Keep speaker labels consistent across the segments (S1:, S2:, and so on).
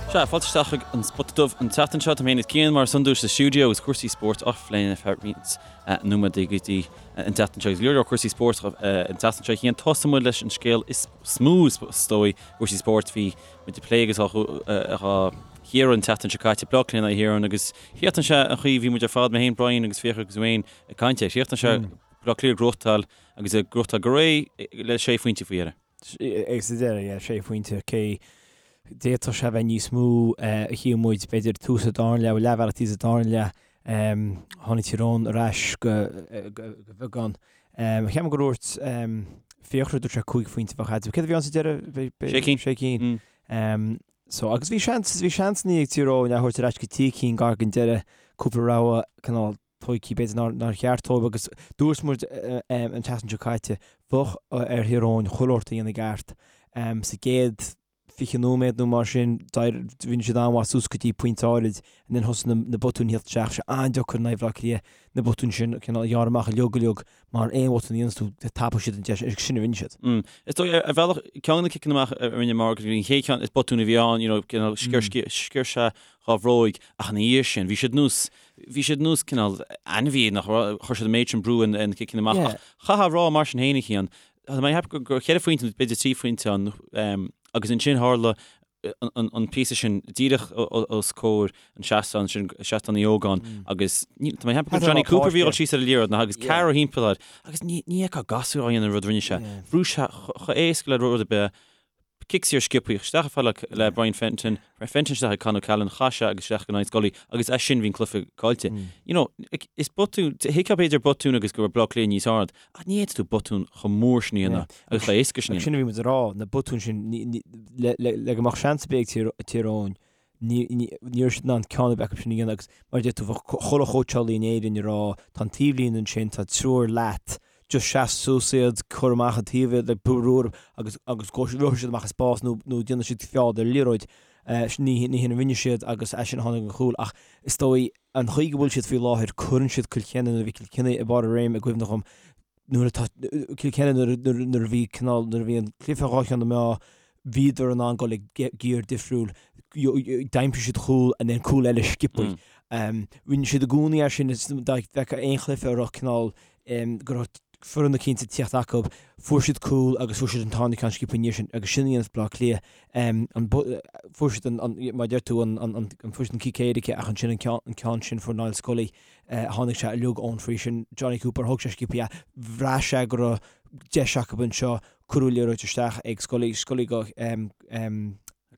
S1: Sea, fáilte isteach chuig an Spota Dubh an tseachtain seo. Tá mé féin is Cian mar is iondúil sa stiúideo agus cúrsaí spóirt á phlé ar feadh roinnt nóiméad go dtí an tseachtain seo. Agus go leor leor cúrsaí spóirt an tseachtain seo Cian. Tosóidh muid leis an scéal is mó is dóigh cúrsaí spóirt. Bhí muid ag plé agus á chíoradh an tseachtain seo caite, Bleá Cliath in aghaidh Thír Eoghain agus chríochnaigh sé an chaoi a bhí muid ar fad, mé féin, Brian agus Fiachra agus Wayne ag caint air. Chríochnaigh sé Bleá Cliath ag gnóthachtáil agus ag gnóthachtáil go réidh le sé phointe faoi dheireadh.
S2: Agus sa deireadh, yeah, sé phointe, cé d'fhéadfadh sé a bheith níos mó a shíl muid, b'fhéidir tús an dara leath, leathbhealach thíos sa dara leath, tháinig Tír Eoghain ar ais go beagán. Cheap mé gur dhúirt Fiachra, dúirt sé 5 phointe a bheadh eatarthu. Céard a bhí ann sa deireadh?
S1: Sé cinn.
S2: Sé cinn. So, agus bhí seans, bhí seansanna ag Tír Eoghain a thabhairt ar ais go trí cinn gar don deireadh, cúpla rogha cineál tógtha b'fhéidir nár cheart dóibh agus dúirt muid an tseachtain seo caite, bheadh ar Thír Eoghain chuile shórt a dhéanamh i gceart. Sa gcéad 20 nóiméad nó mar sin, rinne siad an-mhaith suas go dtí pointe áirid and then thosaigh na botúin a theacht isteach. Sé an-deacair in aghaidh Bhaile Átha Cliath na botúin sin cineál a ghearradh amach uilig uilig mar aon bhotún a dhéanas tú tapóidh siad an deis agus sin a rinne
S1: siad. Is dóigh ar bhealach ceann de na ciceanna amach a rinne Morgan, an chéad cheann is botún a bhí ann, you know, cineál sciorr sé dhá bhróig ach ina dhiaidh sin bhí siad nós Bhí siad nós cineál ainmhí nach raibh, chuir siad an méid sin brú ar na ciceanna amach ach chaithfeá a rá mar sin féin a Chian, tá mé ag ceapadh gur cheithre phointe nó b'fhéidir trí phointe ann agus ansin tharla an píosa sin díreach os comhair an seastán sin, seastán Uí Ógáin agus tá mé ag ceapadh gur Jonny Cooper a bhí ag dul síos ar an liathróid nach agus ceathrar thimpeall air agus ní fheicfeá gasúr á dhéanamh an rud a rinne sé. Bhrúigh sé chomh héasca le rud ar bith. Cic saor sciobtha isteach chomh fada le Brian Fenton, Fenton isteach ag Con O'Callaghan, chaith sé agus isteach go Niall Scully agus as sin bhí an cluiche caillte. You know, is botún, thuigfeá b'fhéidir botún agus go raibh Bleá Cliath níos ard, ach ní fhéadfaidh tú botún chomh mór sin a dhéanamh agus chomh héasca sin
S2: a dhéanamh. Sin a bhí muid a rá, na botúin sin, le go mbeadh seans ar bith ag Tír Eoghain, ní raibh siad in ann ceann ar bith acu sin a dhéanamh agus mar a deir tú, bheadh chuile chóitseálaí in Éirinn ag rá, tá an taobhlíne ansin, tá triúr leat, just seas suas iad, cuir amach an taobh iad, like, brú orthu agus agus go rithfidh siad amach i spás nó nó déanfaidh siad feall ar liathróid. Ní ní hin a rinne siad agus as sin a tháinig an chúl ach is dóigh an chaoi go bhfuil siad faoi láthair cuireann siad Kilkenny nuair a bhí Kilkenny ag barr a réim i gcuimhne dhom nuair atá Kilkenny nuair nuair a bhí cineál nuair a bhí an cluiche dhá cheann na meá bhíodar in ann dul ag giar difriúil, d'aimsigh siad cúl and then cúl eile sciobtha. Rinne siad i gcónaí é sin dá bhfeicfeá aon chluiche a raibh cineál go raibh foireann eicínt ag tíocht acu, fuair siad cúl agus fuair siad an tarna ceann sciobtha ina dhiaidh sin agus sin a dhéanamh Bleá Cliath. Fuair siad an, mar a deir tú, an fuair siad an cic éirice ach ansin an ceann sin fuair Niall Scully, tháinig sé uilig ón free sin, Jonny Cooper, thóg sé sciobtha é, bhraith sé go raibh deis acu anseo, Cuireadh liathróid isteach ag Scully, Scully go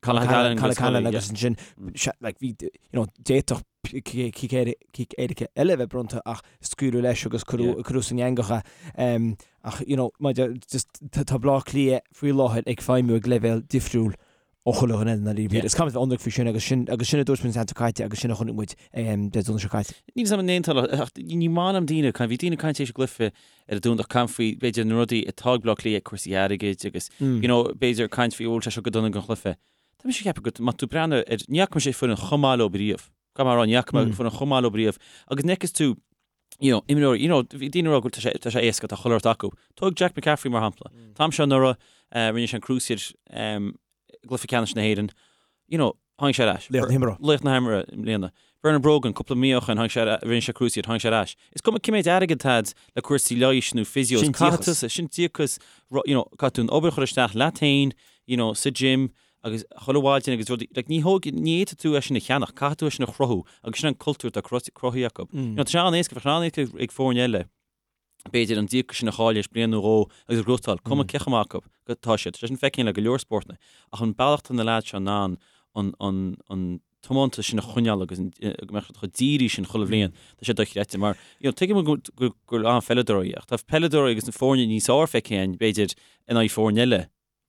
S1: Conor
S2: Callanan agus ansin like bhí you know d'fhéadfadh cic éirice eile a bheith bronnta ach scaoileadh leis agus cuireadh san eangach é. Ach you know maidir just tá Bleá Cliath faoi láthair ag feidhmiú ag leibhéal difriúil ó chuile dhuine eile ndáiríre. Is caithfidh muid bheith ionraic faoi sin agus sin agus sin a dúirt muid an tseachtain seo caite agus sin a chonaic muid Dé Domhnaigh seo caite.
S1: Níl 'fhios a'm an aontófá ach ní maith liom daoine ag caint, bhí daoine ag caint tar éis an gcluiche ar an Domhnach ag caint faoi b'fhéidir na rudaí atá ag Bleá Cliath, cúrsaí airgid agus you know b'fhéidir caint faoi bhfuil sé seo go dona don chluiche. Tá mise ag ceapadh go má tá tú ag breathnú ar, ní fhaca mise foireann chomh maith leo riamh. Caithfidh mé a rá ní fhaca mé foireann chomh maith leo riamh agus an bhfeiceann tú you know, imreoirí, you know, bhí daoine ag rá go bhfuil tá sé, tá sé éasca, tá chuile shórt acu. Tóg Jack McCaffrey mar shampla. An t-am seo anuraidh, eh, rinne sé an cruciate, em, i gcluiche ceannais na hÉireann, you know, tháinig sé ar ais.
S2: Laoch na himeartha.
S1: Laoch na himeartha i mbliana. Bernard Brogan, cúpla mí ó shin, tháinig sé ar, rinne sé cruciate, tháinig sé ar ais. Is cuma cé méid airgead atá a'd le cúrsaí leighis nó physios,
S2: Sin
S1: caithfidh
S2: díocas.
S1: tú, sin díocas, ru- you know, caithfidh tú an obair a chur isteach leat féin, you know, sa gym, agus chuile mhaidin agus rudaí, like ní thóg, ní fhéadfaidh tú é sin a cheannach, caithfidh tú é sin a chruthú agus sin an cultúr atá cruthaithe acu. You know, tá sé an-éasca, bheadh sé an-éasca ag foirne eile, b'fhéidir an díocas sin a chailleadh théis bliain nó dhó agus a ghnóthachtáil, cuma cé chomh maith acu atá siad, tá sé sin feicthe le go leor spórtanna, ach an bealach atá na leaids seo in ann an, an, an tiomantas sin a choinneáil agus an, go mbeadh siad chomh dírithe sin chuile bhliain, tá sé dochreidte mar, you know, tuigim go, go, go bhfuil an-pheileadóirí ach tá peileadóirí agus na foirne níos fearr feicthe againn, b'fhéidir, in aghaidh foirne eile.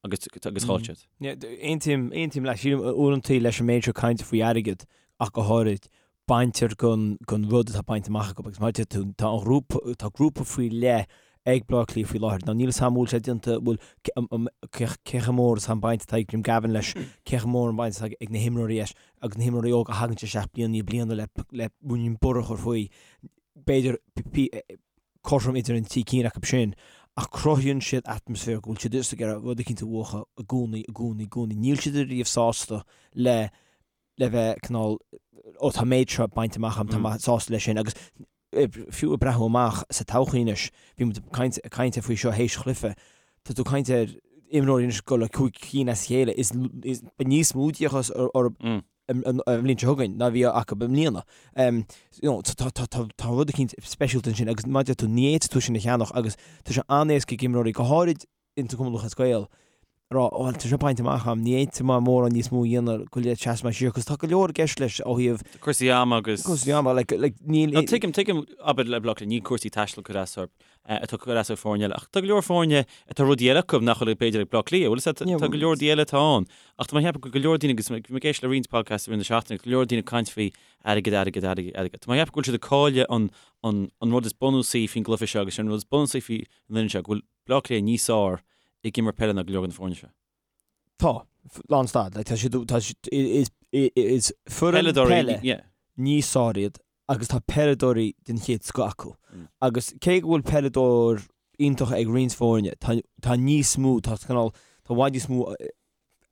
S1: agus agus chaill siad.
S2: Aontaím, aontaím leat. Sílim uaireanta leis an méid seo cainte faoi airgead ach go háirid, baintear den, den rud atá bainte amach acu agus mar a deir tú, tá an ghrúpa, tá grúpa faoi leith ag Bleá Cliath faoi láthair. Now níl 'fhios a'm an bhfuil sé déanta, bhfuil, cé, cé chomh mór is atá an baint atá ag Jim Gavin leis, cé chomh mór an baint atá ag na himreoirí leis agus na himreoirí óga a thagann isteach bliain i ndiaidh bliana le, le ruainnín borradh a chur faoi. B'fhéidir, cothrom idir an trí cinn acu sin, ach cruthaíonn siad atmaisféar go bhfuil siad just ag iarraidh rud eicínt a bhuachan i gcónaí, i gcónaí, i gcónaí. Níl siad ariamh sásta le. le bheith cineál, ó tá an méid seo bainte amach agam, tá mé sásta leis sin agus fiú ag breathnú amach sa todhchaí anois, bhí muid ag caint faoi seo théis chluife, tá tú ag caint ar imreoirí anois ag dul le 5 cinn as a chéile, is beidh níos mó d'fhiachas orthu an bhliain seo chugainn ná bhí acu i mbliana. Tá rud eicínt speisialta ansin agus mar a deir tú, ní fhéadfaidh tú sin a cheannach agus tá sé an-éasca ag imreoirí, go háirid ins an Cumann Lúthchleas Gael, a rá, bhuel, tá seo bainte amach agam, ní fhéadfaidh mé mórán níos mó a dhéanamh go le seasamh mé siar, cos tá go leor i gceist leis ó thaobh.
S1: Cúrsaí ama agus.
S2: Cúrsaí ama, like, like,
S1: níl. No, tuigim, tuigim, abair le Bleá Cliath, níl cúrsaí taistil ag cur as orthu, atá ag cur as ar foirne eile, ach tá go leor foirne atá rudaí eile acu nach bhfuil b'fhéidir ag Bleá Cliath, bhfuil a fhios agat, tá go leor rudaí eile atá ann, ach tá mé ag ceapadh go go leor daoine, agus bhí mé ag éisteacht le roinnt podcasts i rith na seachtaine, go leor daoine ag caint faoi airgead, airgead, airgead, airgead. Tá mé ag ceapadh go bhfuil siad ag cailleadh an, an, an rud is bunúsaí faoin gcluiche seo agus sin an rud is bunúsaí faoi an fhoireann seo, go bhfuil Bleá Cliath níos fearr ag imirt peile ná go leor de na foirne seo.
S2: Tá. Lán stad. Like, tá siad, tá siad, is, is foireann peile níos fearr iad agus tá peileadóirí den chéad scoth acu. Mm. Agus cé go bhfuil peileadóir iontach ag roinnt foirne, tá, tá níos mó, tá cineál, tá i bhfad níos mó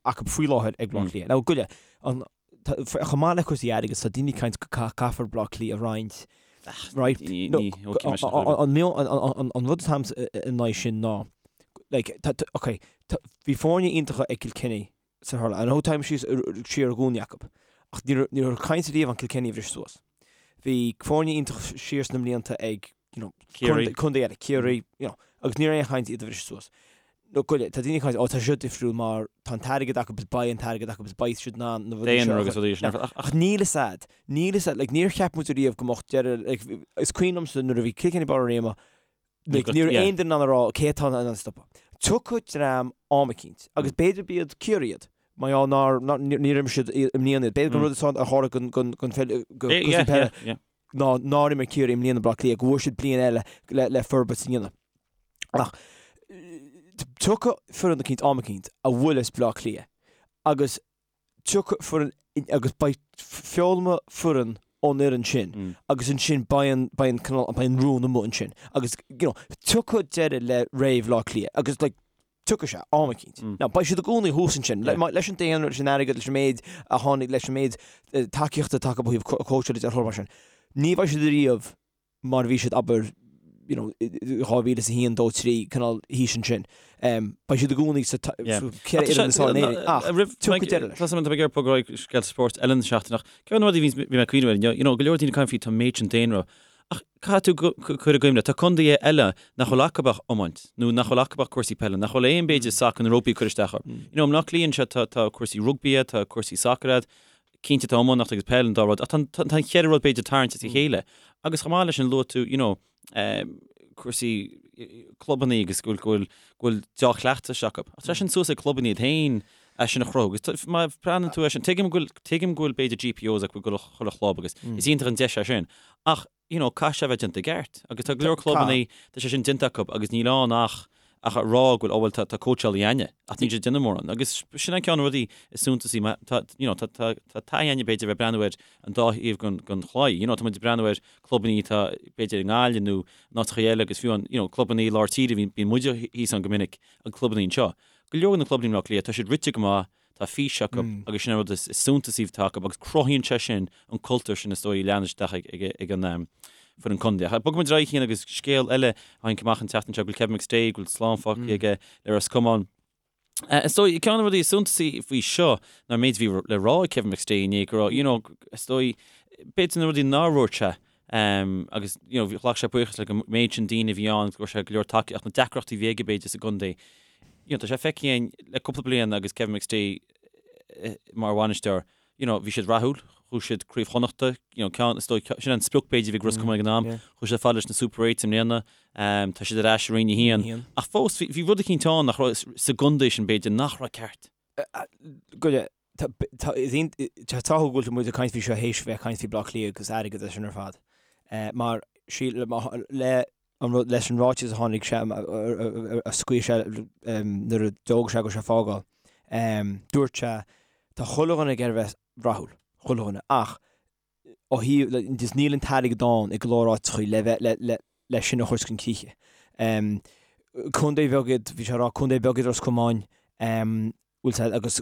S2: acu faoi láthair ag Bleá Cliath. Now, goile, an, chomh maith le cúrsaí airgid, tá daoine ag caint go caithfear Bleá Cliath a roinnt, right? No, an, an rud atáim in aghaidh sin ná, like, tá, ok, bhí foirne iontacha ag Kilkenny sa hurling. I know táim síos siar i gcónaí acu, ach ní raibh, ní raibh caint riamh an Kilkenny a bhris suas. Bhí foirne iontach siar sna mblianta ag, you know,
S1: Ciarraí.
S2: Contae eile, Ciarraí, you know, agus ní raibh aon chaint iad a bhriseadh suas. No, goile, tá daoine ag caint, ó, tá seo difriúil mar tá an t-airgead acu is beidh an t-airgead acu is beidh siad in ann na
S1: rudaí seo a agus rudaí sin.
S2: Ach, ach níl fhios a'd, níl fhios a'd, like, níor cheap muid ariamh go mbeadh deireadh, like, is cuimhin liomsa nuair a bhí Kilkenny Barr an Ríoma, like, ní raibh aon duine in ann a rá cé atá in ann stopadh. Tiocfaidh dream am eicínt, agus b'fhéidir b'iad Ciarraí iad, mar gheall nár, nár, níor imir siad i mbliana iad. B'fhéidir gur rud atá a tharla gon, gon, gon, go,
S1: yeah, yeah, yeah.
S2: ná nár imir Ciarraí i mbliana Bleá Cliath, go bhfuair siad bliain eile le, le forbairt a dhéanamh. Ach tiocfaidh foireann eicínt am eicínt a bhuailfeas Bleá Cliath agus tiocfaidh foireann agus beidh foghlaimeoidh foireann ón fhoireann sin mm. agus ansin beidh an, beidh an, cineál, beidh an rún amuigh ansin agus you know, tiocfaidh deireadh le ré Bhleá Cliath agus like, Tiocfaidh sé, am eicínt. Now, beidh siad i gcónaí thuas ansin, leis an daonra, leis an airgead, leis an méid a tháinig, leis an méid tacaíochta atá acu ó thaobh cóitseála de, mar sin. Ní bheidh siad ariamh mar a bhí siad, abair, you know, 2001, 2, 3, cineál thíos ansin. Beidh siad i gcónaí sa
S1: cheithre fhoireann is fearr in Éirinn, ach tiocfaidh deireadh leis. Tá mé ag iarraidh bogadh ar aghaidh scéalta spóirt eile na seachtaine, ach ceann de na rudaí a bhí mé ag cuimhneamh air inniu, you know, go leor daoine ag caint faoi tá an méid sin daonra Ach caithfidh tú cur i gcuimhne, tá contaetha eile nach bhfuil acu ach iomáint, nó nach bhfuil acu ach cúrsaí peile, nach bhfuil aon b'fhéidir sacar nó rugbaí ag cur isteach orthu. You know, i mBleá Cliath anseo tá, tá cúrsaí rugbaí, tá cúrsaí sacair a'd, cinnte tá iománaíocht agus peil an dá rud, ach tá, tá, tá an cheithre rud b'fhéidir tarraingt as a chéile. Agus chomh maith leis sin luaigh tú, you know, cúrsaí clubannaí agus go bhfuil, go bhfuil, go bhfuil dea-chleachtais acu. Ach tá sin suas ag clubannaí iad féin é sin a chruthú. Agus má bhreathnaíonn tú air sin, tuigim go bhfuil, tuigim go bhfuil b'fhéidir GPOs acu ag chuile chlub agus is iontach an deis é sin. Ach, you know, caithfidh sé a bheith déanta i gceart. Agus tá go leor clubannaí, tá sé sin déanta acu agus níl ann ach, ach a rá go bhfuil, oh bhuel, tá, tá cóitseálaí a'inne. Ach níl siad ag déanamh mórán. Agus sin an ceann de na rudaí is suntasaí. Má, tá, you know, tá, tá, tá taithí a'inne b'fhéidir a bheith ag breathnú ar an dá thaobh den, den chlaí. You know, tá muid ag breathnú ar clubannaí atá b'fhéidir i nGaillimh nó in áiteacha eile agus fiú an, you know, clubannaí lár tíre, bíonn, bíonn muide thíos ann go minic, an clubannaí anseo. Go leor de na clubannaí i mBleá Cliath, tá siad rite go maith, tá fís acu agus sin an rud is suntasaí atá acu agus cruthaíonn sé sin an cultúr sin is dóigh a leanann isteach ag an foireann contae. Ach bogfaidh muid ar aghaidh Cian agus scéal eile a tháinig amach an tseachtain seo go bhfuil Kevin McStay, go bhfuil slán fágtha aige le Ros Comáin. Is dóigh, ceann de na rudaí is suntasaí faoi seo ná an méid a bhí le rá ag Kevin McStay inné go raibh, you know, is dóigh, b'fhéidir na rudaí nár dhúirt sé agus, you know, ghlac sé buíochas le an méid sin daoine a bhí ann agus go raibh sé go leor tacaíocht, ach na deacrachtaí a bhí aige b'fhéidir sa gcontae. You know, tá sé feicthe againn le cúpla bliain agus Kevin McStay mar bhainisteoir, you know, bhí siad rathúil, chuaigh siad Craobh Chonnachta, you know, ceann, is dóigh, sin an sprioc b'fhéidir a bhí ag Ros Comáin ag an am, chuaigh siad fad leis na Super Eights i mbliana, tá siad ar ais i Roinn 1, ach fós bhí, bhí rud eicínt ann nach raibh, sa gcontae sin b'fhéidir, nach raibh ceart.
S2: Go, tá, tá, is iontach, tá go bhfuil muid ag caint faoi seo théis bheith ag caint faoi Bleá Cliath agus airgead is sin ar fad. Mar, sí, le, an rud, leis an ráiteas a tháinig sé, a scaoil sé nuair a d'fhógair sé go raibh sé ag fágáil, dúirt sé, tá chuile dhuine ag iarraidh a bheith rathúil, chuile dhuine, ach ó thaobh, just níl an t-airgead ann i go leor áiteachaí le bheith, le, le, le sin a chur chun críche. Contae bheag iad, bhí sé ag rá, contae beag iad Ros Comáin. Bhfuil sé agus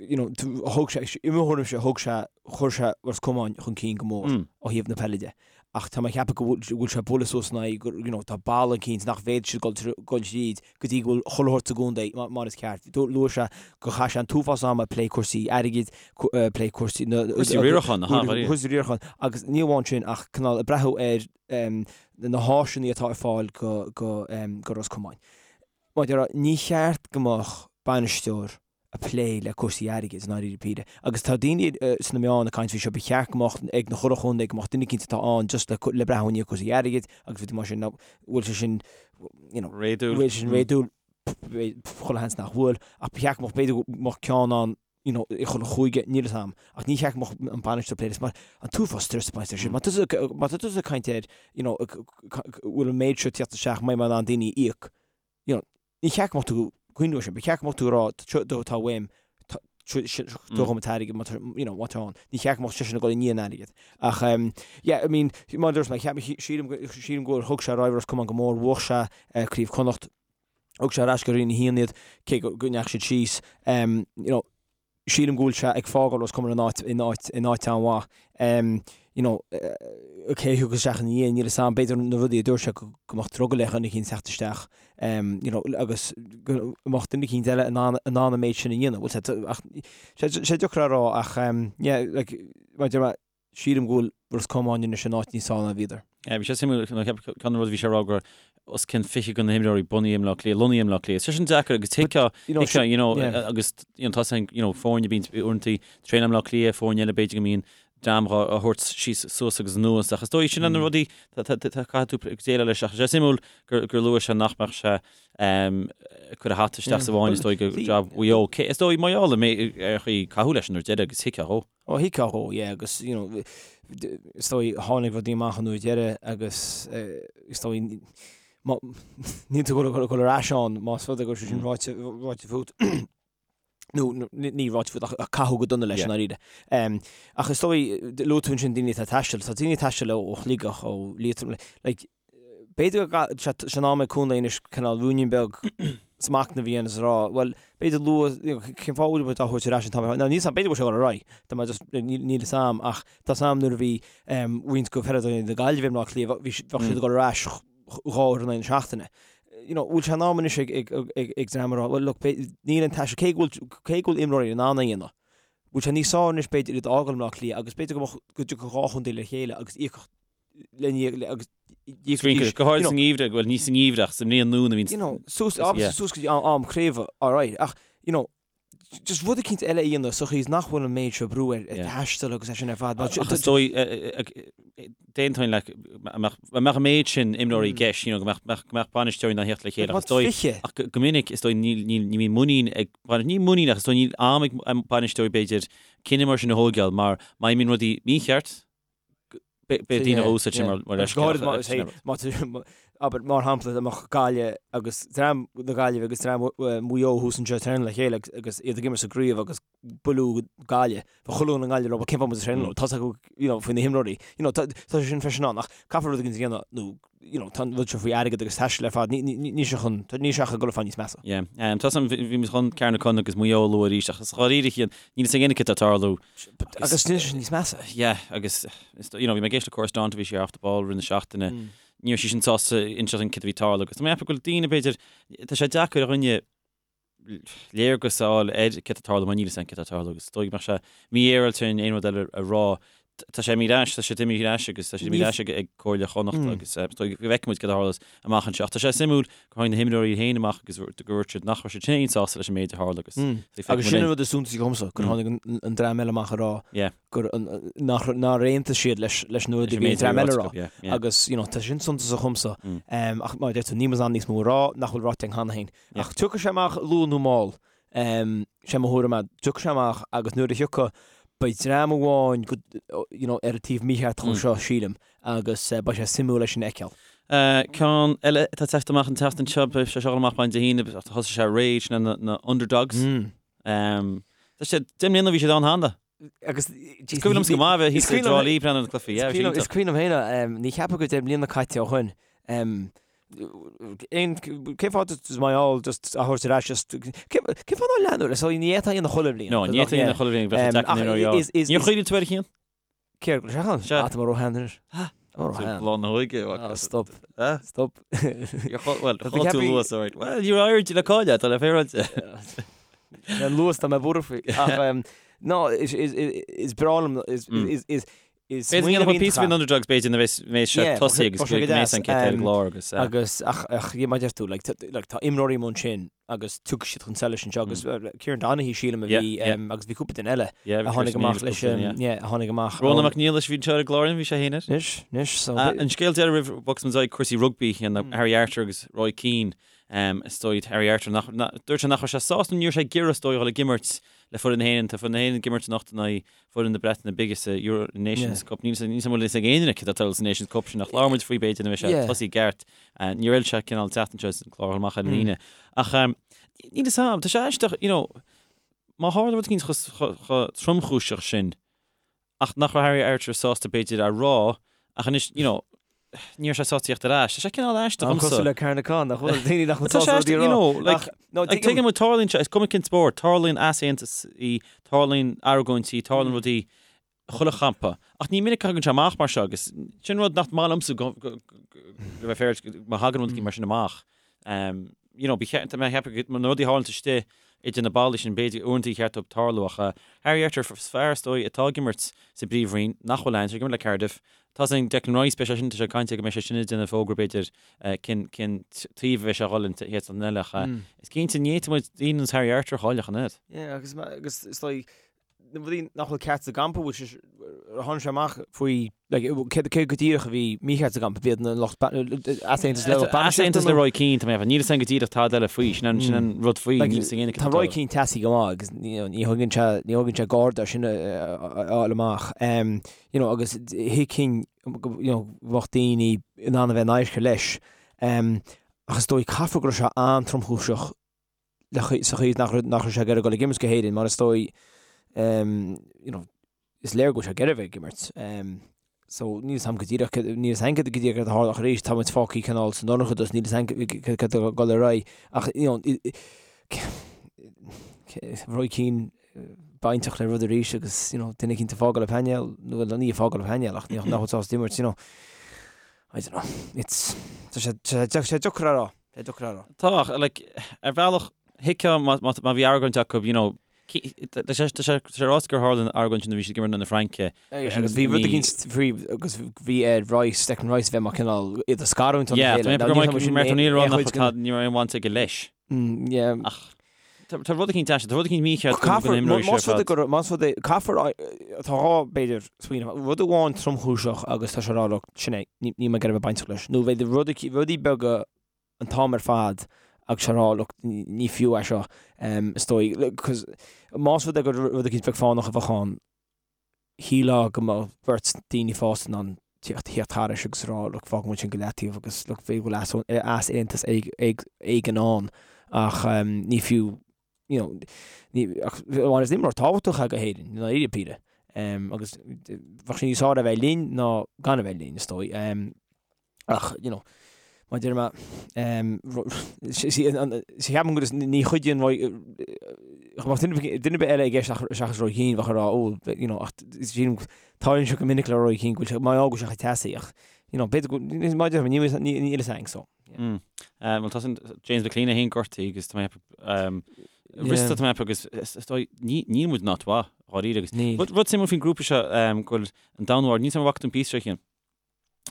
S2: you know thug sé i mo thuairimse thug sé chuir sé Ros Comáin chun cinn go mór ó thaobh na peile de. Ach tá mé ag ceapadh go bhfuil go bhfuil sé ag bualadh suas in aghaidh gur you know tá balla eicínt nach bhféadfaidh siad dul dul tríd go dtí go bhfuil chuile shórt sa gcontae mar is ceart. Luaigh sé gur chaith sé an t-uafás ama ag plé cúrsaí airgid, ag plé cúrsaí na
S1: Cúrsaí riaracháin, aha,
S2: cúrsaí riaracháin agus ní amháin sin ach cineál ag breathnú ar na háiseanna atá ar fáil go go go Ros Comáin. Mar a déarfá, ní cheart go mbeadh bainisteoir ag plé le cúrsaí airgid, i ndáiríre píre. Agus tá daoine sna meáin ag caint faoi seo, ba cheart go mbeadh ag na chuile chontae, go mbeadh duine eicínt atá ann just le le breathnú i ndiaidh cúrsaí airgid agus rudaí mar sin. Now, bhfuil sé sin, you know,
S1: Réadúil.
S2: bhfuil sé sin réadúil? Chuile sheans nach bhfuil. Ach ba cheart go mbeadh, b'fhéidir go mbeadh ceann ann, you know, i chuile chúige, níl 'fhios a'm. Ach ní cheart go mbeadh an bainisteoir ag plé leis mar an t-uafás stress ag baint leis sin. Má tá tusa, má tá tusa ag caint ar, you know, bhfuil an méid seo ag tíocht isteach, mbeidh mé in ann daoine a íoc, you know, ní cheart go mbeadh tú ag cuimhneamh air sin, ba cheart go mbeadh tú ag rá, seo atá uaim, tabhair dhom an t-airgead má tá, you know, má tá ann. Ní cheart go mbeadh seisean ag dul i ndiaidh an airgid. Ach, yeah, I mean, mar a dúirt mé, cheap, sílim, sílim go bhfuil, thug sé ar aghaidh Ros Comáin go mór, bhuaigh sé Craobh Chonnacht, Thug sé ar ais go Roinn 1 iad, cé go ndeachaigh siad síos. You know, sílim go bhfuil sé ag fágáil Ros Comáin in áit, in áit, in áit an-mhaith. You know, cé a thiocfas isteach ina dhiaidh, níl 'fhios a'm. B'fhéidir na rudaí a dúirt sé go mbeadh drogall ar dhuine eicínt teacht isteach, you know, agus go mbeadh duine eicínt eile in ann, in ann an méid sin a dhéanamh. Bhfuil sé, ach, sé, sé deacair a rá ach, yeah, like, mar a deir mé, Sílim go bhfuil Ros Comáin anois in áit níos fearr ná bhíodar.
S1: Bhí sé suimiúil, ceann de na rudaí a bhí sé a rá go raibh os cionn 20 de na himreoirí bunaithe i mBleá Cliath, lonnaithe i mBleá Cliath. Sé sin deacair agus tuigfeá, tuigfeá, you know, agus you know, tá sé, you know, foirne bíonn uaireanta traenáil i mBleá Cliath, foirne eile b'fhéidir go mbíonn dream á thabhairt síos suas agus anuas ach is dóigh sin na rudaí caithfidh tú déileáil leis ach sé suimiúil gur gur luaigh sé nach mbeadh sé ag cur a hata isteach sa bhfáinne is dóigh go jab Mhaigh Eo. Is dóigh mar gheall ar chaoi caitheadh leis an uair deireadh agus thuigfeá dhó.
S2: Ó thuigfeá dhó, yeah, agus, you know, is dóigh, tháinig rudaí amach an uair deireadh agus is dóigh, má, níl tú ag dul ar ais ann más rud é go raibh sé sin ráite, ráite fút, nó ní ráite fút ach caitheadh go dona leis i ndáiríre. Ach is dóigh, luaigh tú ansin daoine atá ag taisteal, tá daoine ag taisteal ó Shligeach, ó Liatroim, like, B'fhéidir go tá sé in am ag contae anois cineál ruainnín beag smachnaimh a dhéanamh is a rá, bhuel, b'fhéidir luath, you know, cén fáth a bhfuil muid á thabhairt ar ais an t-am ar fad? Now, níl 'fhios a'm, b'fhéidir go bhfuil sé ag dul ar aghaidh, tá mé just, níl 'fhios a'm, ach tá 'fhios a'm nuair a bhí roinnt de pheileadóirí na Gaillimhe i mBleá Cliath, bhí siad, bheadh siad ag dul ar ais dhá uair in aghaidh na seachtaine. You know, bhfuil sé in am anois ag, ag, ag, ag dream a rá, well, look, níl an taisteal, cé go bhfuil, cé go bhfuil imreoirí in ann é a dhéanamh, bhfuil sé níos fearr anois b'fhéidir iad a fhágáil i mBleá Cliath agus b'fhéidir go mbeadh, go dtiocfadh dhá chontae le chéile agus íocfadh le agus
S1: Go háirid sa ngeimhreadh, bhuel ní sa ngeimhreadh ach sa mbliain nua a bhíonn
S2: you know, suas, yeah. suas go dtí am craoibhe, alright, ach, you know, just rud eicínt eile a dhéanamh sa chaoi is nach bhfuil an méid seo brú ar yeah. taisteal agus é sin ar fad.
S1: Ach is dóigh, d'aontóinn leat, mbeadh an méid sin imreoirí i gceist, you know, go mbeadh, go mbeadh bainisteoirí in ann theacht le chéile. Ach is dóigh, ach go minic, is dóigh, níl, níl, ní bhíonn muinín ag, ní muinín ach is dóigh níl am ag bainisteoirí b'fhéidir cinneadh mar sin a thógáil mar má imíonn rudaí mícheart, Beidh daoine á úsáid sin mar
S2: leithscéal. Abair, mar shampla, dá mbeadh Gaillimh agus dream na Gaillimhe agus dream Mhaigh Eo thuas anseo ag traenáil le chéile agus iad ag imirt sa gcraobh agus buaileadh Gaillimh. Bheadh chuile dhuine i nGaillimh ag rá, bhuel cén fáth muid ag traenáil leo? Tá's acu, you know, faoi na himreoirí. You know, tá sé sin freisin ann ach caithfear rud éigin a dhéanamh nó, you know, tá an rud seo faoi airgead agus taisteal ar fad, níl sé chun, níl sé ach ag dul ar fad níos measa.
S1: Yeah. Tá 's agam, bhí muid chun Carnacon agus Maigh Eo a lua arís ach is dháiríre, níl 'fhios ag éinne cad tá ag tarlú.
S2: Agus níl sé níos measa.
S1: Yeah, agus you know, bhí mé ag éisteacht le Cora Staunton, bhí sí ar Off the Ball i rith na seachtaine. Ní raibh sí sin sásta inseacht dúinn cad a bhí ag tarlú agus tá mé ag ceapadh go bhfuil daoine b'fhéidir, tá sé deacair ar dhuine léargas a fháil ar cad tá ag tarlú mar níl 'fhios againn cad tá ag tarlú agus is dóigh go mbeadh sé mífhéaráilte aon rud eile a rá. Tá sé imithe ar ais, tá sé imithe ar ais agus tá sé imithe ar ais ag ag Comhairle Chonnacht agus is dóigh go bhfeicfidh muid cad a tharlós amach anseo. Ach tá sé suimiúil gur tháinig na himreoirí féin amach agus gur dhúirt siad nach raibh siad féin sásta leis an méid a tharla agus
S2: Agus sin an rud is suntasaí dhomsa, gur tháinig an dream eile amach ag rá gur nár aontaigh siad leis leis na rudaí a bhí an dream eile a rá. Agus you know, tá sin suntasach dhomsa. Ach mar a deir tú, níl muid in ann níos mó a rá nach bhfuil ráite againn cheana féin. Ach tiocfaidh sé amach luath nó mall. Sé mo thuairim é, tiocfaidh sé amach agus nuair a thiocfaidh, beidh dream amháin go, you know, ar an taobh mícheart dhó seo, sílim, agus beidh sé suimiúil é sin a fheiceáil.
S1: Ceann eile atá ag teacht amach an tseachtain seo, beidh sé seo ag dul amach maidin Dé hAoine, thosaigh sé aréir, sin na Underdogs. Tá sé, 10 mbliana ó bhí siad ann cheana.
S2: Agus
S1: Is cuimhin liomsa go maith a bheith thíos i dTrá Lí ag breathnú ar na cluichí, yeah, bhí sé
S2: iontach. Is cuimhin liom féin, ní cheapaim gur 10 mbliana caite ó shin. Aon, cén fáth just Maigh Eo just a thabhairt ar ais just, cé cén fáth nár leanadh leis? So ní fhéadfá a dhéanamh chuile bhliain.
S1: No, ní fhéadfá a dhéanamh chuile bhliain, bheadh sé deacair
S2: Ach
S1: na imreoirí a
S2: is, is,
S1: Níor chuimhnigh tú air a Chian?
S2: Céard, go raibh sé ann?
S1: Sea.
S2: Ah, tá mé róshean anois.
S1: Ah.
S2: Tá mé róshean.
S1: Lá na hóige.
S2: Ah, stop.
S1: Ah.
S2: Stop.
S1: Well,
S2: Tá
S1: chaill tú
S2: ceapaí-
S1: luas, alright. Well, ní raibh aird le cailleadh, tá le féaráilte.
S2: An luas tá mé buartha faoi. Ach, um, no, is, is, is, is breá liom, is,
S1: Mm.
S2: is, is, is
S1: B'fhéidir go
S2: smaoineamh
S1: ndéanfaidh píosa
S2: iontach
S1: faoin Underdogs b'fhéidir nuair a bheas sé
S2: Yeah,
S1: tosaithe agus
S2: bheadh sé go
S1: go mbeidh
S2: deas,
S1: an chéad ar an
S2: um,
S1: gclár agus eh,
S2: Agus ach ach yeah, mar a deir tú like, tá- like, tá imreoirí amuigh ansin agus tiocfaidh siad chun solais anseo agus uh, Kieran Donaghy sílim a
S1: Mm. Yeah,
S2: bhí
S1: yeah.
S2: um, agus bhí cúpla duine eile
S1: yeah, bhí
S2: a tháinig
S1: Chris
S2: amach
S1: Neal
S2: leis
S1: agus
S2: um,
S1: yeah.
S2: yeah, a tháinig amach
S1: Rónán
S2: ón-
S1: Mac Niallais bhí anseo ar an gclár bhí sé féin air.
S2: Anois, anois, so
S1: Ah, An scéal deiridh roimh bhogfas muid ar aghaidh cúrsaí rugbaí chéanna
S2: Mm.
S1: Harry Arter agus Roy Keane um, is dóigh Harry Arter nach, na, dúirt sé nach raibh sé sásta ní raibh sé ag iarraidh is dóigh a dhul ag imirt le foireann na hÉireann tá foireann na hÉireann ag imirt anocht in aghaidh foireann na Breataine Bige sa Euro Nations Cup. Níl a fhios ag aon duine céard atá ag tarlú sa Nations Cup sin ach labhair muid faoi b'fhéidir nuair a bheidh sé tosaithe i gceart. Níor fheil sé cineál teacht anseo sa chlár amach ar an Aoine. Ach níl fhios a'm, tá sé aisteach, you know, má tharla rud éicint chomh tromchúiseach sin ach nach raibh Harry Arter sásta b'fhéidir a rá ach anois, you know, ní raibh sé sásta tíocht ar ais. Tá sé cineál aisteach
S2: An
S1: domsa.
S2: cosúil le Carnacon, nach bhfuil daoine nach bhfuil
S1: Tá sé
S2: sásta rudaí
S1: aisteach,
S2: a
S1: you
S2: rá.
S1: know, like,
S2: Ach, no,
S1: like,
S2: tuigim-
S1: tuigim muid tarlaíonn sé, is cuma cén spórt, tarlaíonn easaontasaí, tarlaíonn argóintí, tarlaíonn rudaí chuile champa. Ach ní minic a thagann sé amach mar seo agus sin rud nach maith liomsa go, go, go, go bheith féaráilte, má thagann rud éicint mar sin amach. Um, you know, ba cheart, mé cheapadh go na rudaí a tharlaíonn istigh idir na ballaí sin b'fhéidir uaireanta ba cheart dóibh tarlú ach uh, Harry Arter fear is dóigh atá ag imirt sa bpríomhroinn nach bhfuil ann, sé ag imirt le Cardiff. Tá sin Declan Rice beidh sé sin tá sé ag caint go mbeidh sé sin ag déanamh fógra b'fhéidir uh, cén cén taobh a bheidh sé a dhul an chéad seachtain eile ach uh, is cinnte ní fhéadfaidh muid daoine ar nós Harry Arter a chailleadh an oiread.
S2: Yeah, agus agus is dóigh na rudaí nach bhfuil ceart sa gcampa, bhfuil sé, tháinig sé amach faoi, like, cé cé go díreach a bhí mícheart sa gcampa, b'iad na lucht easaontas le lucht bainistíochta
S1: Easaontas le Roy Keane, tá mé ag ceapadh, níl fhios a'm go díreach tada eile faoi, sin an sin an rud faoi,
S2: Like,
S1: níl fhios ag éinne
S2: tá Roy Keane teasaí go maith agus you know, ní thógann sé ní thógann sé garda sin a a fháil amach. Um, you know, agus thuigfinn go you know, bheadh daoine in ann a bheith in adharca leis. Um, ach is dóigh caithfidh go raibh sé an-tromchúiseach sa chaoi nach raibh sé ag iarraidh dul ag imirt go hÉirinn mar is dóigh you know is léir go bhfuil sé ag iarraidh bheith ag imirt. So níl fhios a'm go díreach níl fhios a'm go díreach céard a tharla ach arís tá muid fágtha cineál sa ndorchadas níl fhios a'm céard atá ag dul ar aghaidh ach you know Roy Keane bainteach le rud arís agus you know duine eicínt ag fágáil an painéal nó bhuel ní ag fágáil an painéal ach nach bhfuil sásta imirt you know I don't know it's tá sé tá sé deacair a rá. Tá deacair a rá.
S1: Tá, ach, like, ar bhealach, thuigfeá má, má, má bhí argóint acu, you know, tá sé, tá sé, tá sé ráite gur tharla an argóint sin nuair a bhí siad ag imirt in aghaidh na Fraince.
S2: Agus bhí rud eicínt faoi, agus bhí ar Rice, Declan Rice bheith mar cineál iad a scarúint óna
S1: Yeah,
S2: chéile.
S1: tá mé ag Martin O'Neill rá nach raibh ní raibh aon bhaint aige leis.
S2: Yeah.
S1: Ach tá tá rud eicínt aisteach, tá rud eicínt mícheart go
S2: Caithfear,
S1: go n-imreoidh sé
S2: más
S1: ar
S2: rud é
S1: fad.
S2: gur, más rud é, caithfear, tá dhá, b'fhéidir, smaoineamh, rud amháin tromchúiseach agus tá sé ag rá, look, sin é, ní, níl mé ag iarraidh a bheith bainteach leis. Nó b'fhéidir rud, rudaí beaga an t-am ar fad agus a rá look ní fiú é seo is dóigh cos más rud é gur rud eicínt beag fánach a bheadh ann shílfeá go mbeadh beirt daoine fásta in ann tíocht thíocht thairis agus a rá look fágfaidh muid sin go leataobh agus look b'fhéidir go bhfuil easaontas éigin ann ach ní fiú you know ní ach mar is imreoir tábhachtach é go hÉirinn i ndáiríre píre agus bheadh sé níos fearr a bheith linn ná gan a bheith linn is dóigh. Ach, you know, mar a deir mé, ceapaim go ní chuidíonn Roy, dá mbeadh duine ar bith eile i gceist seachas Roy Keane, bheadh ag rá, oh, you know, ach sílim, tarlaíonn sé go minic le Roy Keane go bhfuil sé, mar go bhfuil sé chomh teasaí, ach, you know, b'fhéidir go, mar a deir mé, níl a fhios againn, so.
S1: Mm. Bhuel, tá sin James McClean é féin gortaithe agus tá mé Rista tá mé agus is dóigh, níl muid in áit mhaith, dháiríre agus. Rud suimiúil faoin grúpa seo go bhfuil an Danmhairg, níl 'fhios a'm an bhfaca tú an píosa seo a Chian.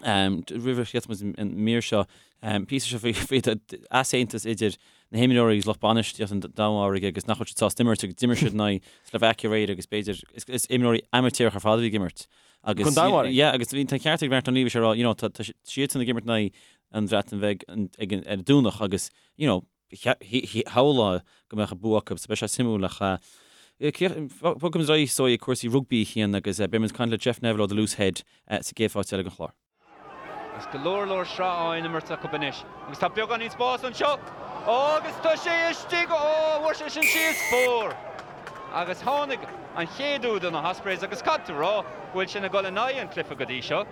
S1: Roimh a sheas muid an mír seo, píosa seo faoi easaontas idir na himreoirí agus lucht bainistíochta an Danmhairg agus nach bhfuil siad sásta imirt agus d'imir siad in aghaidh Slovakia aréir agus b'fhéidir is imreoirí amaitéarach ar fad a bhí ag imirt. Agus
S2: Don Danmhairg?
S1: Yeah, agus bhí an ceart ag Martin O'Neill bhí sé ag rá, you know, tá siadsan ag imirt in aghaidh an Bhreatain Bheag ag an ar an Domhnach agus, you know, shamhlófá go mbeadh an bua acu, so beidh sé suimiúil ach bogfaidh muid ar aghaidh is dóigh ag cúrsaí rugbaí a Chian agus beidh muid ag caint le Jeff Neville ó The Loose Head sa gcéad pháirt eile den chlár.
S3: Agus go leor leor sraith á n-imirt acu anois. Agus tá beagáinín spáis anseo. Ó agus tá sé istigh! Ó, bhfuair sé sin síos! Scór! Agus tháinig an chéad úd do na hOspreys agus caithfidh tú a rá go bhfuil sin ag dul in aghaidh an cluiche go dtí seo.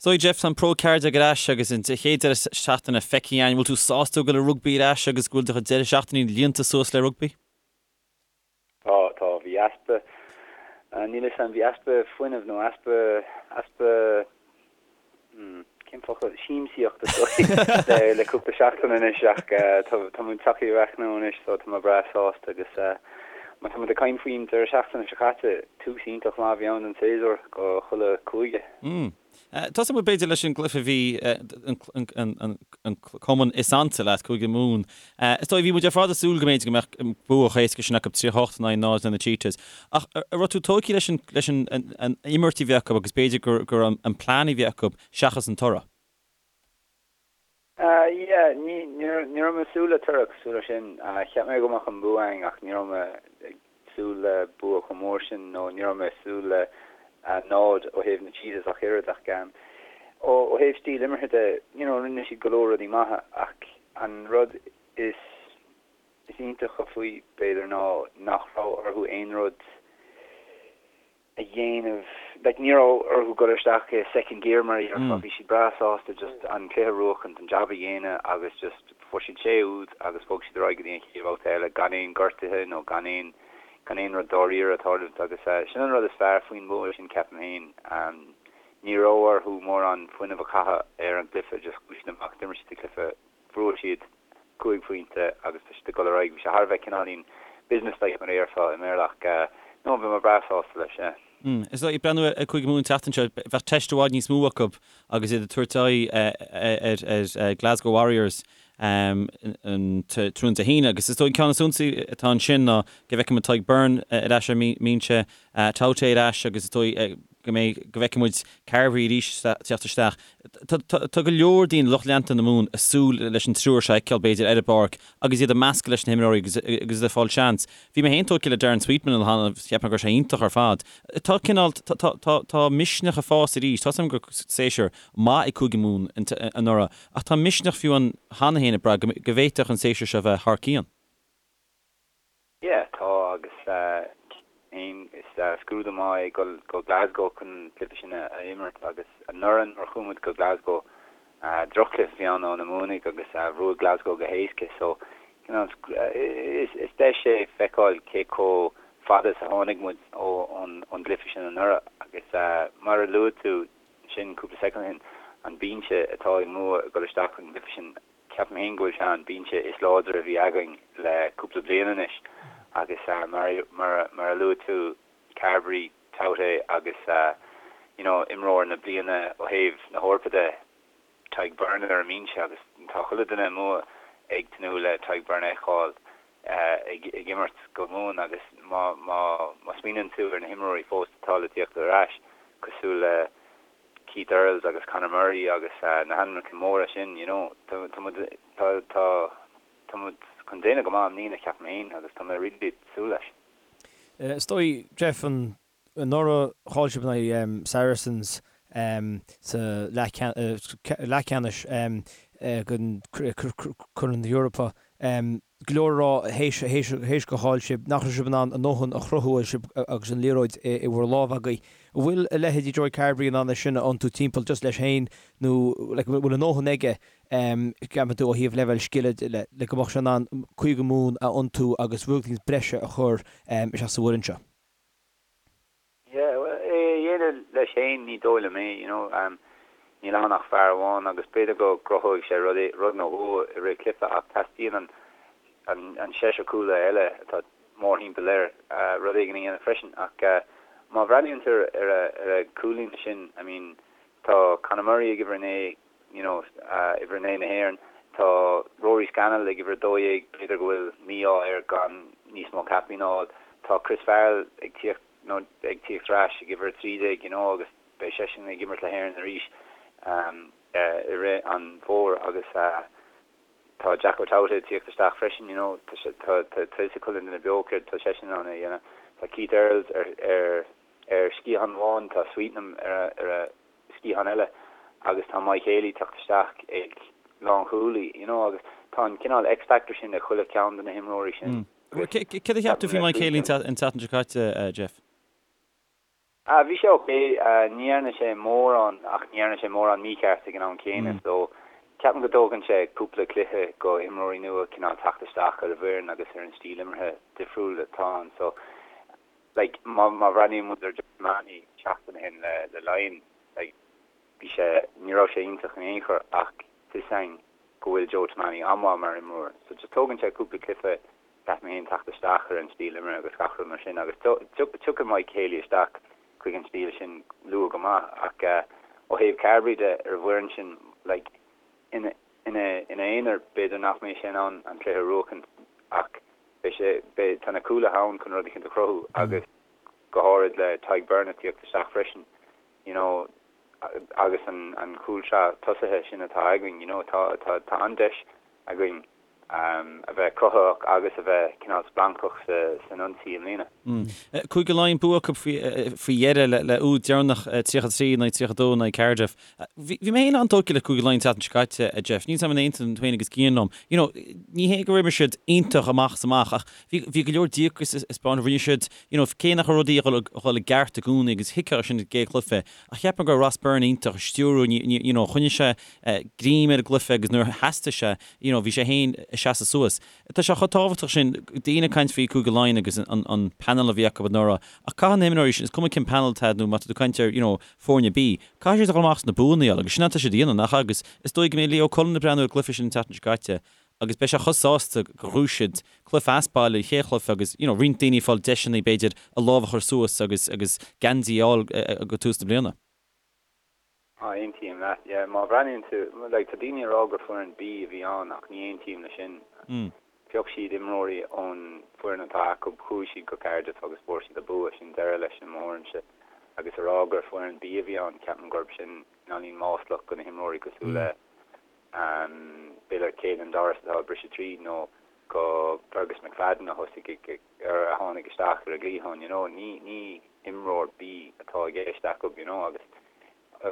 S1: So Jeff, tá an Pro 14 ar ais agus an chéad deireadh seachtaine feicthe againn. Bhfuil tú sásta go bhfuil an rugbaí ar ais agus go bhfuil do chuid deireadh seachtainí líonta suas le rugbaí?
S4: Tá, tá. Bhí easpa, níl 'fhios a'm, bhí easpa fuinnimh nó easpa, easpa, hmm, cén focal, siamsaíocht is dóigh le cúpla seachtain anois ach tá, tá muid tagtha ar ais now anois so tá mé breá sásta agus má tá muid ag caint faoin deireadh seachtaine seo caite, tús iontach maith a bhí ann don séasúr go chuile cúige.
S1: Hmm. Tosóidh muid b'fhéidir leis an gcluiche a bhí an cumann is ansa leat, Cúige Mumhan. Is dóigh, bhí muid ar fad ag súil go mb'fhéidir go mbeadh bua chomh héasca sin acu 38 in aghaidh 0 na Cheetahs. Ach an raibh tú tógtha leis an imirt a bhí acu agus b'fhéidir gur an plean a bhí acu seachas an toradh?
S4: Yeah, ní raibh mé ag súil le toradh cosúil leis sin. Cheap mé go mbeadh an bua againn ach ní raibh mé ag súil le bua chomh mór sin nó ní raibh mé ag súil le náid ó thaobh na Cheetahs ach oiread ach ó thaobh stíl imeartha de, you know, rinne siad go leor rudaí maithe ach an rud is is iontacha faoi b'fhéidir ná nach raibh orthu aon rud a dhéanamh, like ní raibh orthu dul isteach i second gear mar a dhéarfá, bhí siad breá sásta just an cluiche a bhuachaint, an jab a dhéanamh agus just fuair siad sé úd agus bhog siad ar aghaidh go dtí an chéad bhabhta eile gan aon gortuithe nó gan aon gan aon rud dáiríre ag tarlúint agus sin an rud is fearr faoin bua sin ceapaim féin. Ní raibh orthu mórán fuinnimh a chaitheamh ar an gcluiche, just chuaigh siad amach, d'imir siad an cluiche Bhuaigh siad 5 phointe agus tá siad ag dul ar aghaidh. Bhí sé thar a bheith cineáilín business-like mar a dhéarfá i mBéarla ach no, bhí mé breá sásta leis, yeah.
S1: Is dóigh, ag breathnú ar Chúige Mumhan an tseachtain seo, bheadh teist i bhfad níos mó acu agus iad ag tabhairt aghaidh ar Glasgow Warriors an tráthnóna Dé hAoine agus is dóigh an ceann is suntasaí atá ansin ná go bhfeicfidh muid Tadhg Beirne ar ais ar an mbinse, Taute ar ais agus is dóigh go mbeidh, go bhfeicfidh muid Carbery arís teacht isteach. Tá go leor daoine, lucht leanta na Mumhan, ag súil leis an triúr seo a fheiceáil, b'fhéidir, ar an bpáirc agus iad ag meascadh leis na himreoirí agus iad ag fáil seans. Bhí mé féin tógtha le Darren Sweetnam an lá cheana, cheap mé go raibh sé iontach ar fad. Tá cineál, tá misneach ag fás arís. Tá 's agam go raibh séasúr maith ag Cúige Mumhan anuraidh ach tá misneach fiú ann cheana féin ag brath go bhféadfadh an séasúr seo bheith thar cionn.
S4: Yeah, tá agus féin is scrúdú maith é dul go Glasgow chun an cluiche sin a imirt agus anuraidh nuair a chuaigh muid go Glasgow droch-chluiche a bhí ann ó na Mumhanaigh agus bhuaigh Glasgow go héasca so you know is deis é feiceáil cé chomh fada is a tháinig muid ón gcluiche sin anuraidh agus mar a luaigh tú sin cúpla soicind ó shin an binse atá ag Mumha ag dul isteach an gcluiche sin Ceapaim féin go bhfuil sé an binse is láidre a bhí againn le cúpla bliain anois agus mar a luaigh tú, Carbery, Taute agus you know imreoir na bliana ó thaobh na hEorpa de, Tadhg Beirne ar an mbinse agus tá chuile duine amuigh ag tnúth le Tadhg Beirne a fheiceáil ag imirt go Mumhan agus má smaoiníonn tú ar na himreoirí fós atá le tíocht ar ais cosúil le Keith Earls agus Conor Murray agus na hainmneacha móra sin, you know, tá muid, tá, tá, tá muid chun déanamh go maith i mbliana, ceapaim féin, agus tá mé really ag súil leis.
S2: Is dóigh, Jeff, an, anuraidh chaill sibh in aghaidh Saracens sa leathcheannais den Chorn na hEorpa. Go leor a rá théis gur chaill sibh, nach raibh sibh in ann a ndóthain a chruthú agus sibh agus an liathróid i bhur lámh agaibh. An bhfuil a leithéidí Joey Carbery in ann é sin a iontú timpeall just leis féin nó like an bhfuil a ndóthain aige ceapann tú ó thaobh leibhéal scile de le le go mbeadh sé in ann Cúige Mumhan a iontú agus rud éicint breise a chur isteach sa bhfoireann seo?
S4: Yeah, well, é a dhéanamh leis féin, ní dóigh liom é, you know, níl ann ach fear amháin agus b'fhéidir go gcruthóidh sé rud, rud nó dhó i rith cluiche ach teastaíonn an, an, an seisear cúlaithe eile atá mórthimpeall air rud éigin a dhéanamh freisin ach má bhreathnaíonn tú ar a, ar a chúl-líne sin, I mean, tá Conor Murray ag uimhir a naoi, you know, uimhir a naoi na hÉireann, tá Rory Scannell ag uimhir a 12, b'fhéidir go bhfuil mí-ádh air gan níos mó caipín a fháil, tá Chris Farrell ag tíocht, nó ag tíocht ar ais ag uimhir 13 you know agus beidh seisean ag imirt le hÉirinn arís i rith an bhfómhair agus tá Jack O'Dowd ag tíocht isteach freisin you know tá sé tá tá tá fhios ag chuile duine beo céard tá seisean in ann a dhéanamh. Tá Keith Earls ar ar ar sciathán amháin, tá Sweetnam ar a ar a sciathán eile agus tá Mike Haley teacht isteach ag lánchúlaí you know agus tá an cineál X-factor sin ag chuile cheann de na himreoirí sin.
S1: Céard a cheap tú faoi Mike Haley an tseachtain seo caite, Jeff?
S4: Ah, bhí sé ok. Ní dhearna sé mórán ach ní dhearna sé mórán mícheart ag an am céanna so ceapaim go dtógann sé cúpla cluiche go imreoirí nua cineál teacht isteach ar an bhfoireann agus ar an stíl imeartha difriúil atá ann so like má má bhreathnaíonn muid ar Joe Tomane seachtain ó shin le le Laighin like bhí sé ní raibh sé iontach in aon chor ach tá fhios againn go bhfuil Joe Tomane an-mhaith mar imreoir so just tógann sé cúpla cluiche ceapaim féin teacht isteach ar an stíl imeartha agus gach rud mar sin agus tiocfaidh Mike Haley isteach chuig an stíl sin luath go maith ach ó thaobh Carbery de ar an bhfoireann sin like ina ina ina aonar b'fhéidir nach mbeidh sé in ann an cluiche a bhuachaint ach beidh sé beidh tá na cúlaithe ann chun rud eicínt a chruthú agus go háirid le Tadhg Beirne tíocht isteach freisin you know agus an an chúlsraith tosaithe sin atá againn you know tá tá tá an-deis againn a bheith cruthaitheach agus a bheith cineál splancach san ionsaí i mbliana.
S1: Cúige Laighean bua acu faoi dheireadh le úd deireanach 33 in aghaidh 32 in aghaidh Cardiff. Bhí mé féin an-tógtha le Cúige Laighean an tseachtain seo caite, a Jeff. Níl 's agam an aontaíonn tú féin agus Cian liom. You know, ní hé gur imir siad iontach amach is amach ach bhí bhí go leor díocas a 'speáint. Rinne siad, you know, cé nach raibh rudaí ag dhul i gceart i gcónaí agus thuigfeá sin i gcéad chluiche ach cheap mé go raibh Ross Byrne iontach ag stiúrú, you know, choinnigh sé greim ar an gcluiche agus nuair a theastaigh sé, you know, bhí sé féin ag seasamh suas. Tá sé chomh tábhachtach sin, daoine ag caint faoi Cúige Laighean agus an panel a bhí acu anuraidh, ach caithfidh na himreoirí sin, is cuma cén panel atá nó má tá tú ag caint ar, you know, foirne B, caithfidh siad a dhul amach is na buanna a fháil agus sin atá siad a dhéanamh, nach ea? Agus is dóigh go mbeidh Leo Cullen ag breathnú ar an gcluiche sin an tseachtain seo caite agus beidh sé chomh sásta gur ghnóthaigh siad cluiche as baile, an chéad chluiche agus, you know, roinnt daoine ag fáil deiseanna b'fhéidir a lámh a chur suas agus, agus geansaí a fháil go tús na bliana.
S4: Á, aontaím leat, yeah. Má bhreathnaíonn tú, like, tá daoine ag rá gur foireann B a bhí ann ach ní aontaím leis sin. Phioc siad imreoirí ón foireann atá acu, chuaigh siad go Cardiff agus fuair siad an bua, sin deireadh leis i mo thuairimse. Agus a rá gur foireann B a bhí ann, ceapaim gurb sin cineáilín maslach go na himreoirí cosúil le b'fhéidir Caelan Doris atá ag briseadh tríd nó go Fergus McFadden a thosaigh ag, ar a tháinig isteach ar an gcliathán, you know, ní, ní imreoir B atá i gceist acu, you know, agus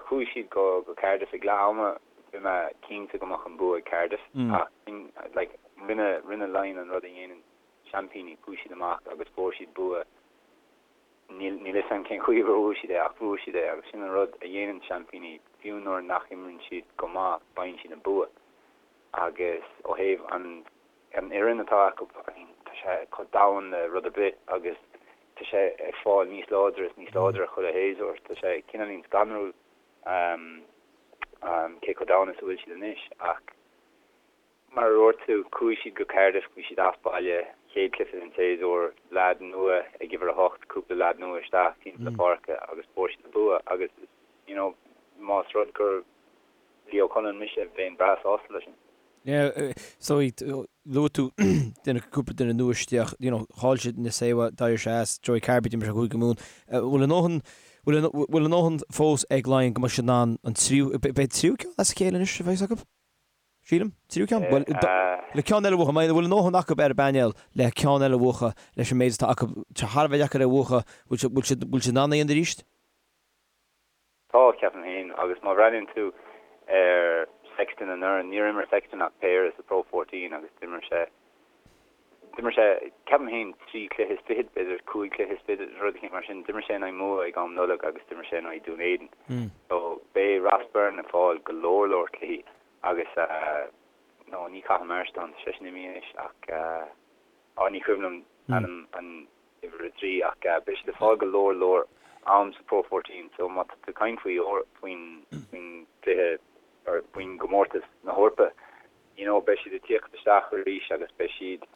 S4: chuaigh siad go, go Cardiff ag leath ama, bhí mé cinnte go mbeadh an bua ag Cardiff ach like rinne, rinne Laighin an rud a dhéanann seaimpíní, chuaigh siad amach agus fuair siad bua, níl, níl fhios agam cén chaoi a bhfuair siad é ach fuair siad é agus sin an rud a dhéanann seaimpíní, fiú nuair nach imríonn siad go maith, faigheann siad an bua agus ó thaobh an An fhoireann atá acu, I mean, tá sé chomh domhain le rud ar bith agus tá sé ag fáil níos láidre is níos láidre chuile shéasúr. Tá sé cineáilín scanrúil cé chomh domhain is a bhfuil siad anois ach mar a dúirt tú, chuaigh siad go Cardiff, bhí siad as baile, chéad chluiche den tséasúr, leaid nua ag uimhir 8, cúpla leaid nua isteach timpeall na páirce agus fuair siad an bua agus you know, más rud gur Leo Cullen mise, bheinn breá sásta leis sin.
S2: Yeah, so luaigh tú duine, cúpla duine nua isteach, you know, chaill siad Nacewa, d'éirigh sé as, Joey Carbery, d'imir sé Cúige Mumhan. Bhfuil a ndóthain, bhfuil a, bhfuil a ndóthain fós ag Laighin go mbeidh siad in ann an tríú, beidh tríú ceann as a chéile anois a bheas acu? Sílim, tríú ceann? Bhuel, le ceann eile a bhuachan, bhfuil a ndóthain acu ar an bpainéal le ceann eile a bhuachan leis an méid atá acu, tá thar a bheith deacair é a bhuachan, bhfuil siad, bhfuil siad, bhfuil siad in ann é a dhéanamh arís?
S4: Tá, ceapaim féin, agus má bhreathnaíonn tú ar Sexton anuraidh, níor imir Sexton ach péire sa Pro 14 agus d'imir sé, d'imir sé, ceapaim féin, trí chluiche is fichead, b'fhéidir cúig chluiche is fichead, rud eicínt mar sin. D'imir sé in aghaidh Mumha ag am Nollag agus d'imir sé in aghaidh Dún Éideann. So beidh Ross Byrne ag fáil go leor leor cluichí agus, no, ní Cathal Marston, tá seisean imithe anois ach, á, ní cuimhin liom ainm an. uimhir 3 ach beidh siad ag fáil go leor leor am sa Pro 14 so má tá tú ag caint faoi faoin faoin gcluiche or faoin gcomórtas na hEorpa you know beidh siad ag tíocht isteach arís agus beidh siad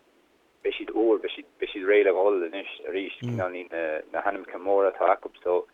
S4: beidh siad úr beidh siad beidh siad réidh le dhul anois arís cineál ní na na hainmneacha móra atá acu so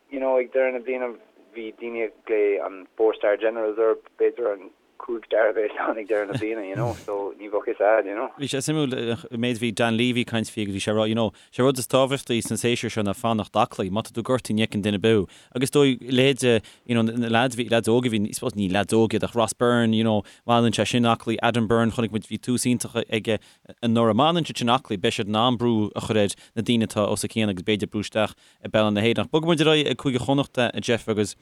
S4: you know ag deireadh na bliana bhí daoine ag glaoch an four star generals orthu b'fhéidir an 5 star a bheas ann ag deireadh na bliana, you know, so ní bheadh fhios a'd, you know.
S1: Bhí sé suimiúil an méid a bhí Dan Leavy ag caint faoi agus bhí sé ag rá, you know, sé rud is tábhachtaí san séasúr seo ná fanacht aclaí, má tá tú gortaithe ní fheiceann duine ar bith thú. Agus is dóigh leithéide, you know, na lads bhí, lads óga a bhí, I suppose ní lads óga iad ach Ross Byrne, you know, má fhanann sé sin aclaí, Adam Byrne, chonaic muid bhí tús iontach aige anuraidh. Má fhanann siad sin aclaí beidh siad in ann brú a chur ar na daoine atá os a cionn agus b'fhéidir brú isteach i bpeil na hÉireann. Ach bogfaidh muid ar aghaidh ag Cúige Chonnachta, a Jeff, agus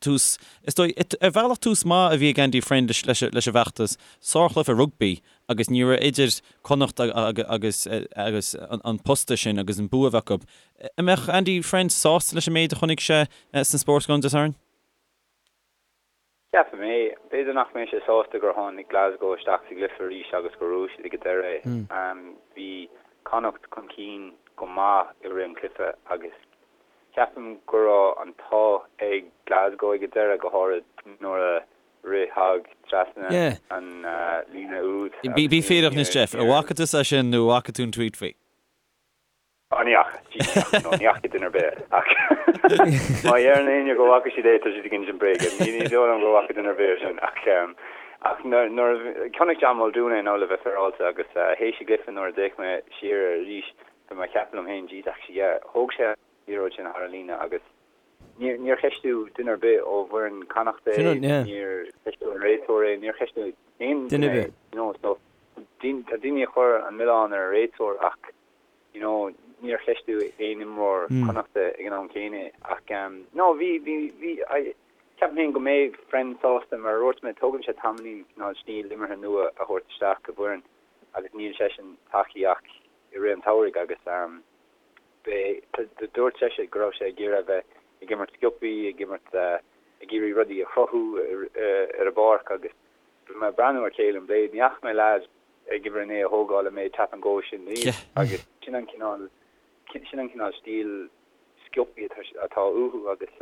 S1: tús, is dóigh, ar bhealach tús maith a bhí ag Andy Friend leis. leis an bhfeachtas, sárchluiche rugbaí agus ní raibh idir Connacht agus agus an posta sin agus an bua a bheith acu. An mbeadh Andy Friend sásta leis an méid a chonaic sé sna Sportsground Dé Sathairn?
S4: Ceapaim é. B'fhéidir nach mbeidh sé sásta gur tháinig Glasgow isteach sa gcluiche arís agus gur bhuaigh siad ag an deireadh é. Bhí Connacht chun cinn go maith i rith an chluiche agus ceapaim go raibh an t-ádh ag Glasgow ag an deireadh, go háirid nuair a rith Hogg trasna an líne úd.
S1: Bí fírinneach anois Jeff, an bhfaca tusa é sin nó an bhfaca tú an tweet faoi?
S4: Ó ní fhaca, jeez, ní fhaca, no, ní fhaca duine ar bith é, ach má dheireann éinne go bhfaca siad é, tá siad ag insint bréige. Ní, ní dóigh liom go bhfaca duine ar bith é sin, ach, ach nuair, nuair a, chonaic John Muldoon é now le bheith féaráilte agus théis an gcluiche nuair a d'fhéach mé siar air arís, bhí mé ag ceapadh liom féin, jeez, actually, yeah, thóg sé an liathróid sin thar an líne agus níor, níor cheistigh duine ar bith ó bhfoireann Connacht é, níor cheistigh an réiteoir é, níor cheistigh aon duine é, you know, so, tá daoine ag cur an milleán ar an réiteoir ach you know, níor cheistigh aon imreoir Connachta ag an am céanna ach no, bhí, bhí, bhí, I, ceapaim féin go mbeidh Friend sásta mar a dúirt mé, tógann sé tamaillín cineál stíl imeartha nua a thabhairt isteach i bhfoireann agus níl seisean tagtha ach i rith an tsamhraidh agus beidh, dúirt seisean go raibh sé ag iarraidh a bheith ag imirt sciobthaí, ag imirt, ag iarraidh rudaí a chruthú ar an bpáirc agus bhí mé ag breathnú ar Caolin Blade, ní fhaca mé leaid ag uimhir 9 a thógáil an méid tap and go sin riamh agus sin an cineál sin an cineál stíl sciobthaí atá uathu agus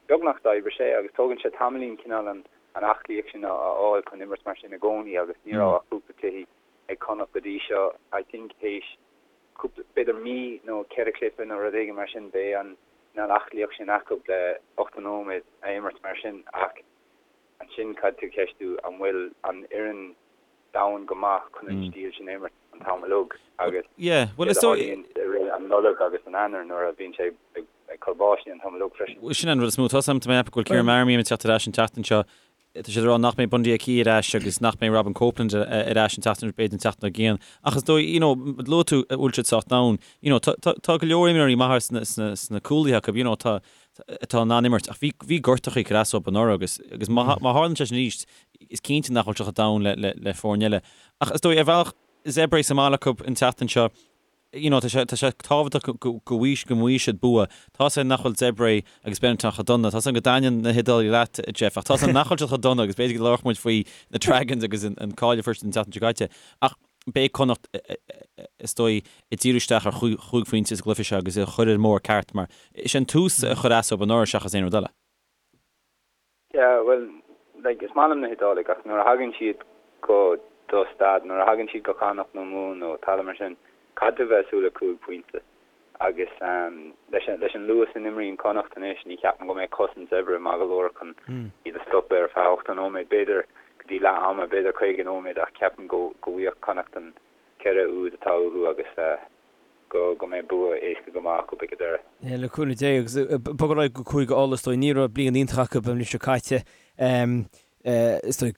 S4: beagnach d'oibrigh sé agus tógann sé tamaillín cineál an an aclaíocht sin a fháil chun imirt mar sin i gcónaí agus ní raibh ach cúpla cluichí ag Connacht go dtí seo I think théis cúpla b'fhéidir mí nó ceithre chluiche nó rud éigin mar sin beidh an cineál aclaíocht sin acu le 80 nóiméad a imirt mar sin ach ansin caithfidh tú ceistiú an bhfuil an fhoireann domhain go maith chun an stíl sin a imirt an t-am uilig agus
S1: céard
S4: a tharlaíonn i rith an Nollaig agus an Eanáir nuair a bhíonn sé ag cur báistí an t-am uilig freisin.
S1: Sin an rud is mó. Tá mé ag ceapadh go bhfuil Kieran Marmion ag teacht ar ais an tseachtain seo. Tá siad ag rá nach mbeidh Bundee Aki ar ais agus nach mbeidh Robin Copeland ar ais an tseachtain, b'fhéidir an tseachtain dár gcionn. Ach is dóigh, you know, luaigh tú an bhfuil siad sách domhain. You know, tá, tá, tá go leor imreoirí maithe sna, sna, sna cúlaithe acu, you know, tá, atá in ann imirt. Ach bhí, bhí gortachaí ag cur as dóibh anuraidh agus, agus má, má tharlaíonn sé sin arís, Is cinnte nach bhfuil siad chomh domhain le le foirne eile. Ach is dóigh, ar bhealach, Zebre sa mbaile acu an tseachtain seo, you know, tá sé, tá sé tábhachtach go, go, go bhfaighidh, go bhfaighidh siad bua. Tá 's agam nach bhfuil Zebre agus Benetton chomh dona. Tá 's agam go dtaitníonn na hIodálaigh leat, Jeff, ach tá 's agam nach bhfuil siad chomh dona agus b'fhéidir go labharfadh muid faoi na Dragons agus an, an cáil a fuair siad an tseachtain seo caite. Ach beidh Connacht, is dóigh, ag díriú isteach ar chúig phointe sa gcluiche seo agus a chur ar an mbóthar ceart mar is é an tús a chuir as dóibh anuraidh seachas aon rud eile.
S4: Yeah, bhuel, like, is maith liom na hIodálaigh ach nuair a thagann siad go do staid, nuair a thagann siad go Connacht nó Mumhan nó talamh mar sin, caithfidh tú a bheith ag súil le 5 phointe. Agus leis an, leis an luas a n-imríonn Connacht anois, ní cheapaim go mbeidh cosaint Zebre maith go leor chun iad a stopadh ar feadh 80 nóiméad, b'fhéidir go dtí leath ama, b'fhéidir 50 nóiméad ach ceapaim go, go bhfaigheadh Connacht an 4 úd atá uathu agus eh, go go mbeidh bua éasca go maith acu ag an deireadh.
S2: Yeah, le cúnamh Dé agus bog ar aghaidh go Cúige Uladh is dóigh ní raibh bliain iontach acu an bhliain seo caite is dóigh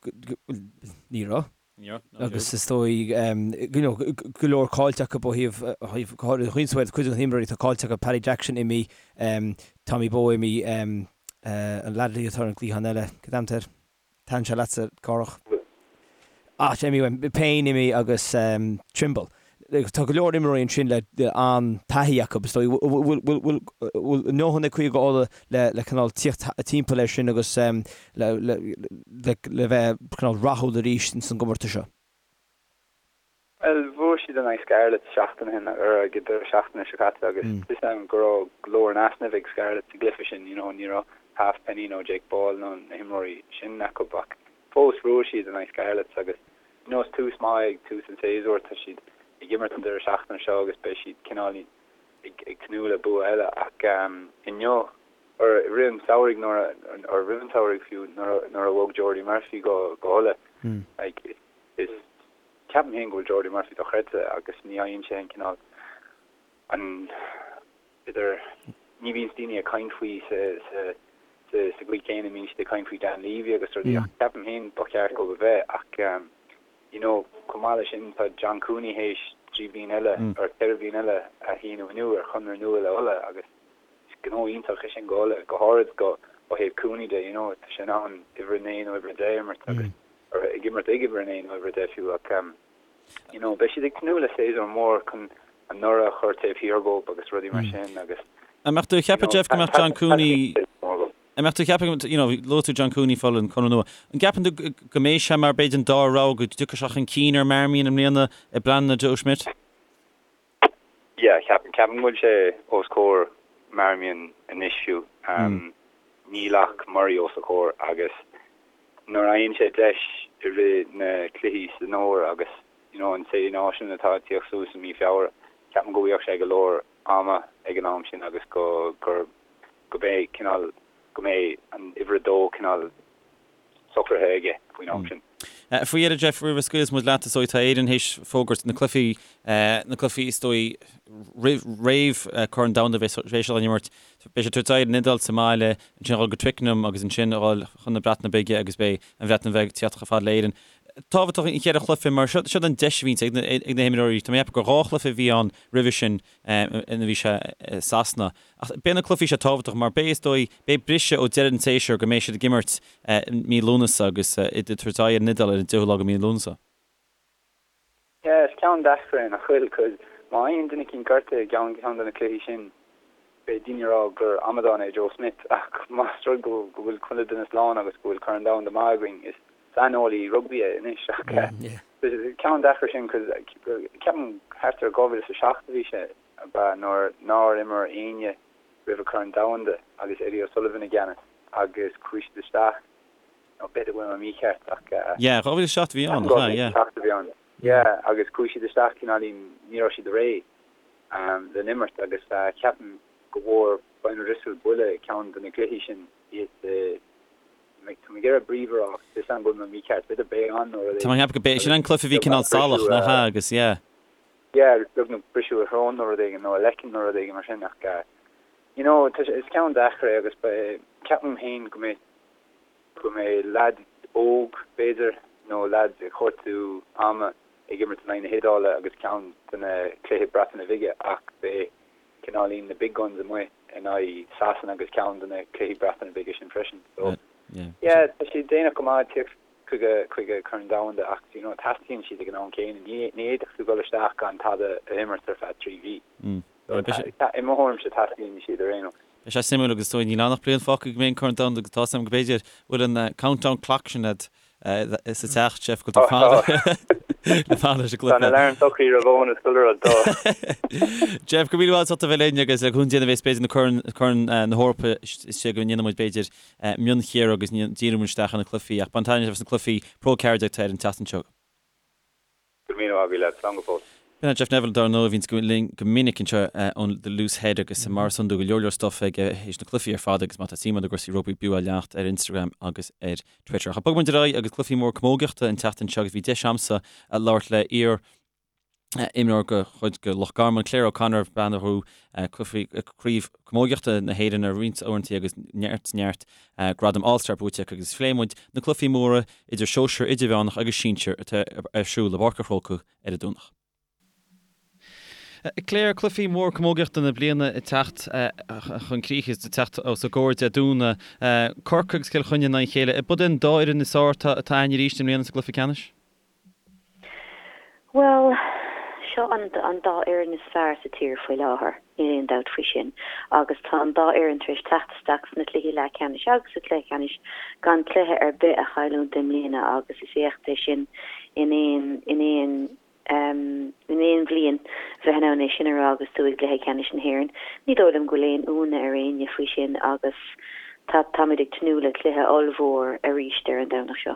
S2: ní raibh.
S1: Ní raibh.
S2: Agus is dóigh you know go leor caillte acu ó thaobh ó thaobh go háirithe Queensway cuid de na himreoirí atá caillte acu Paddy Jackson imithe Tommy Bowe imithe an leaid atá ar an gcliathán eile cad é an t-ainm air? Thaitin sé leatsa, Cárthach. Ah, imithe, Payne imithe agus Trimble. Tá go leor imreoirí ansin le an-taithí acu, is dóigh. Bhfuil a ndóthain ag Cúige Uladh le cineál tíocht timpeall air sin agus le bheith cineál rathúil arís ins an gcomórtas seo?
S4: Bhuel, bhuaigh siad in aghaidh Scarlets seachtain ó shin, ar ag an deireadh seachtaine seo caite agus fios agam go raibh go leor in easnamh ag Scarlets sa gcluiche sin, you know, ní raibh Halfpenny nó Jake Ball nó na himreoirí sin acu ach fós bhuaigh siad in aghaidh Scarlets agus you know, is tús maith ag tús an tséasúir, tá siad ag imirt an deireadh seachtaine seo agus beidh siad cineál ag ag tnúth le bua eile ach inniu or i rith an tsamhraidh nuair a or roimh an tsamhraidh fiú nuair a nuair a bhog Jordi Murphy go go hUladh like is Ceapaim féin go bhfuil Jordi Murphy dochreidte agus ní fhaigheann sé an cineál, an, b'fhéidir, ní bhíonns daoine ag caint faoi sa, sa, sa, sa gcaoi chéanna a mbíonn siad ag caint faoi Dan Leavy agus rudaí ach ceapaim féin ba cheart dó a bheith ach you know chomh maith leis sin tá John Cooney théis 3 bhliain eile or 4 bhliain eile a shíniú inniu ar chonradh nua le Uladh agus is gnó iontach é sin go Uladh, go háirid go, ó thaobh Cooney de, you know tá sé in ann uimhir 9 nó uimhir 10 a imirt agus. Ag imirt ag uimhir a 9 nó uimhir a 10 fiú ach you know beidh siad ag tnúth le séasúr mór chun anuraidh a chur taobh thiar dhóibh agus rudaí mar sin agus
S1: An mbeadh tú ag ceapadh Jeff go mbeadh John Cooney An mbeadh tú ag ceapadh you know luaigh tú John Cooney fáil an conradh nua. An gceapann tú go mbeidh sé mar b'fhéidir an dara rogha go dtiocfaidh sé chun cinn ar Marmion i mbliana i bpleananna Joe Schmidt?
S4: Yeah, ceapaim, ceapaim go bhfuil sé os comhair Marmion anois fiú. Níl ach Murray os a chomhair agus nuair a fhaigheann sé deis i rith na cluichí san fhómhar agus you know an Sé Náisiún atá ag tíocht suas i mí Feabhra, ceapaim go bhfaigheadh sé go leor ama ag an am sin agus go gur go mbeidh cineál go mbeidh an uimhir a dó cineál socraithe aige faoin am sin.
S1: Faoi dheireadh, Jeff, roimh a scaoilfeas muid leat, is dóigh, tá Éirinn théis fógairt na cluichí, na cluichí is dóigh roimh, roimh Corn Domhanda a bheidh siad á n-imirt. Beidh siad ag tabhairt aghaidh ar an Iodáil sa mbaile, ansin a dhul go Twickenham agus ansin a dhul chun na Breataine Bige agus beidh an Bhreatain Bheag ag tíocht chomh fada le Éirinn. Tábhachtach an cheithre chluiche mar seo, seo an deis a bhíonns ag na, ag na himreoirí. Tá mé ag ceapadh gur dhá chluiche a bhí ann roimhe sin ina bhí sé i Sasana. Ach beidh na cluichí seo tábhachtach mar beidh, is dóigh, beidh briseadh ó deireadh an tséasúir go mbeidh siad ag imirt mí Lúnasa agus iad ag tabhairt aghaidh ar an Iodáil ar an 10ú lá de mhí Lúnasa.
S4: Yeah, is ceann deacair é nach bhfuil? Cos má fhaigheann duine eicínt gortaithe i gceann ceann de na cluichí sin, beidh daoine ag rá gur amadán é Joe Schmidt ach más rud go go bhfuil chuile duine slán agus go bhfuil Corn Domhanda maith againn, is saineolaí rugbaí é anois ach is ceann deacair sin cos ceapaim thart ar 2007 a bhí sé ab ea nuair nár imir éinne roimh an Chorn Domhanda agus Eddie O'Sullivan i gceannas agus chuaigh siad isteach, nó b'fhéidir go bhfuil mé mícheart ach.
S1: Yeah, 2007 a bhí ann,
S4: nach ea? Yeah. 2007 a bhí ann, yeah, agus chuaigh siad isteach cineáilín, ní raibh siad réidh le n-imirt agus ceapaim go bhfuair Brian O'Driscoll buille i gceann de na cluichí sin, iad Tá mé ag iarraidh Brive a rá ach tá a fhios agam go bhfuil mé mícheart, b'fhéidir Bayonne nó rud
S1: Tá mé ag ceapadh go b'é sin an cluiche a bhí cineál salach, nach ea, agus yeah.
S4: Yeah, agus beagnach briseadh a shrón nó rud éigin, nó a leiceann nó rud éigin mar sin ach you know, tá sé, is ceann deacair é agus beidh, ceapaim féin go mbeidh, go mbeidh leaid óg b'fhéidir nó leaid ag cuartú ama ag imirt in aghaidh na hIodáile agus ceann de na cluichí Breataine Bhige ach beidh cineáilín na big guns amuigh in aghaidh Sasana agus ceann de na cluichí Breataine Bige sin freisin. So yeah, tá siad déanach go maith ag tíocht chuige chuige Corn Domhanda ach you know teastaíonn siad ag an am céanna. Ní ní fhéadfadh tú dul isteach gan tada a imirt ar feadh 3 mhí. So i mo thuairimse teastaíonn siad ar aon nós.
S1: Beidh sé suimiúil agus is dóigh níl ann ach bliain fágtha go mbeidh an Corn Domhanda agus tá a fhios agam go b'fhéidir bhfuil an countdown clock sin agat sa teach, Jeff, go bhfuil tú ag fanacht leis an
S4: gcluiche. Tá na alarm socraithe ar bhonn is chuile rud, tá.
S1: Jeff, go raibh míle maith agat as ucht a bheith linn agus le cúnamh Dé nuair a bheas b'fhéidir na Corn, Corn na hEorpa istigh go ndéanfaidh muid b'fhéidir mionchíoradh agus díreoidh muid isteach ar na cluichí ach bain taitneamh as na cluichí Pro 14 atá ar an tseachtain seo.
S4: Go raibh míle maith agat leat, slán go fóill.
S1: B'in é Jeff Neville, dar ndóigh, a bhíonns linn go minic anseo ón The Loose Head agus mar is iondúil go leor leor stuff aige théis na cluichí ar fad agus má tá suim agat i gcúrsaí rugbaí b'fhiú é a leanacht ar Instagram agus ar Twitter. Ach bogfaidh muid ar aghaidh agus cluichí mór camógaíochta an tseachtain seo agus bhí deis a'msa labhairt le iar imreoir de chuid de Loch Garman, Claire O'Connor, bean a ghnóthaigh Craobh Camógaíochta na hÉireann ar roinnt uaireanta agus neart neart gradam All Star buaite aici agus phléigh muid na cluichí móra idir sóisir, idirmheánach agus sinsir atá ar siúl i bPáirc an Chrócaigh ar an Domhnach. Claire, cluichí mór camógaíochta na bliana ag teacht chun críche, ag teacht os ár gcomhair Dé Domhnaigh. Corcaigh agus Cill Chainnigh in aghaidh a chéile. Ab iad an dá fhoireann is fearr atá againn arís i mbliana sa gcluiche ceannais?
S5: Bhuel, seo an an dá fhoireann is fearr sa tír faoi láthair, níl aon dabht faoi sin. Agus tá an dá fhoireann tar éis teacht isteach sna cluichí leathcheannais agus sa chluiche ceannais gan cluiche ar bith a chailliúint i mbliana agus is éacht é sin in aon in aon in aon bhliain bheith in ann é sin a rá agus tú i gcluiche ceannais na hÉireann. Ní dóigh liom go bhfuil aon ionadh ar éinne faoi sin agus tá táimid ag tnúth le cluiche ollmhór arís ar an Domhnach seo.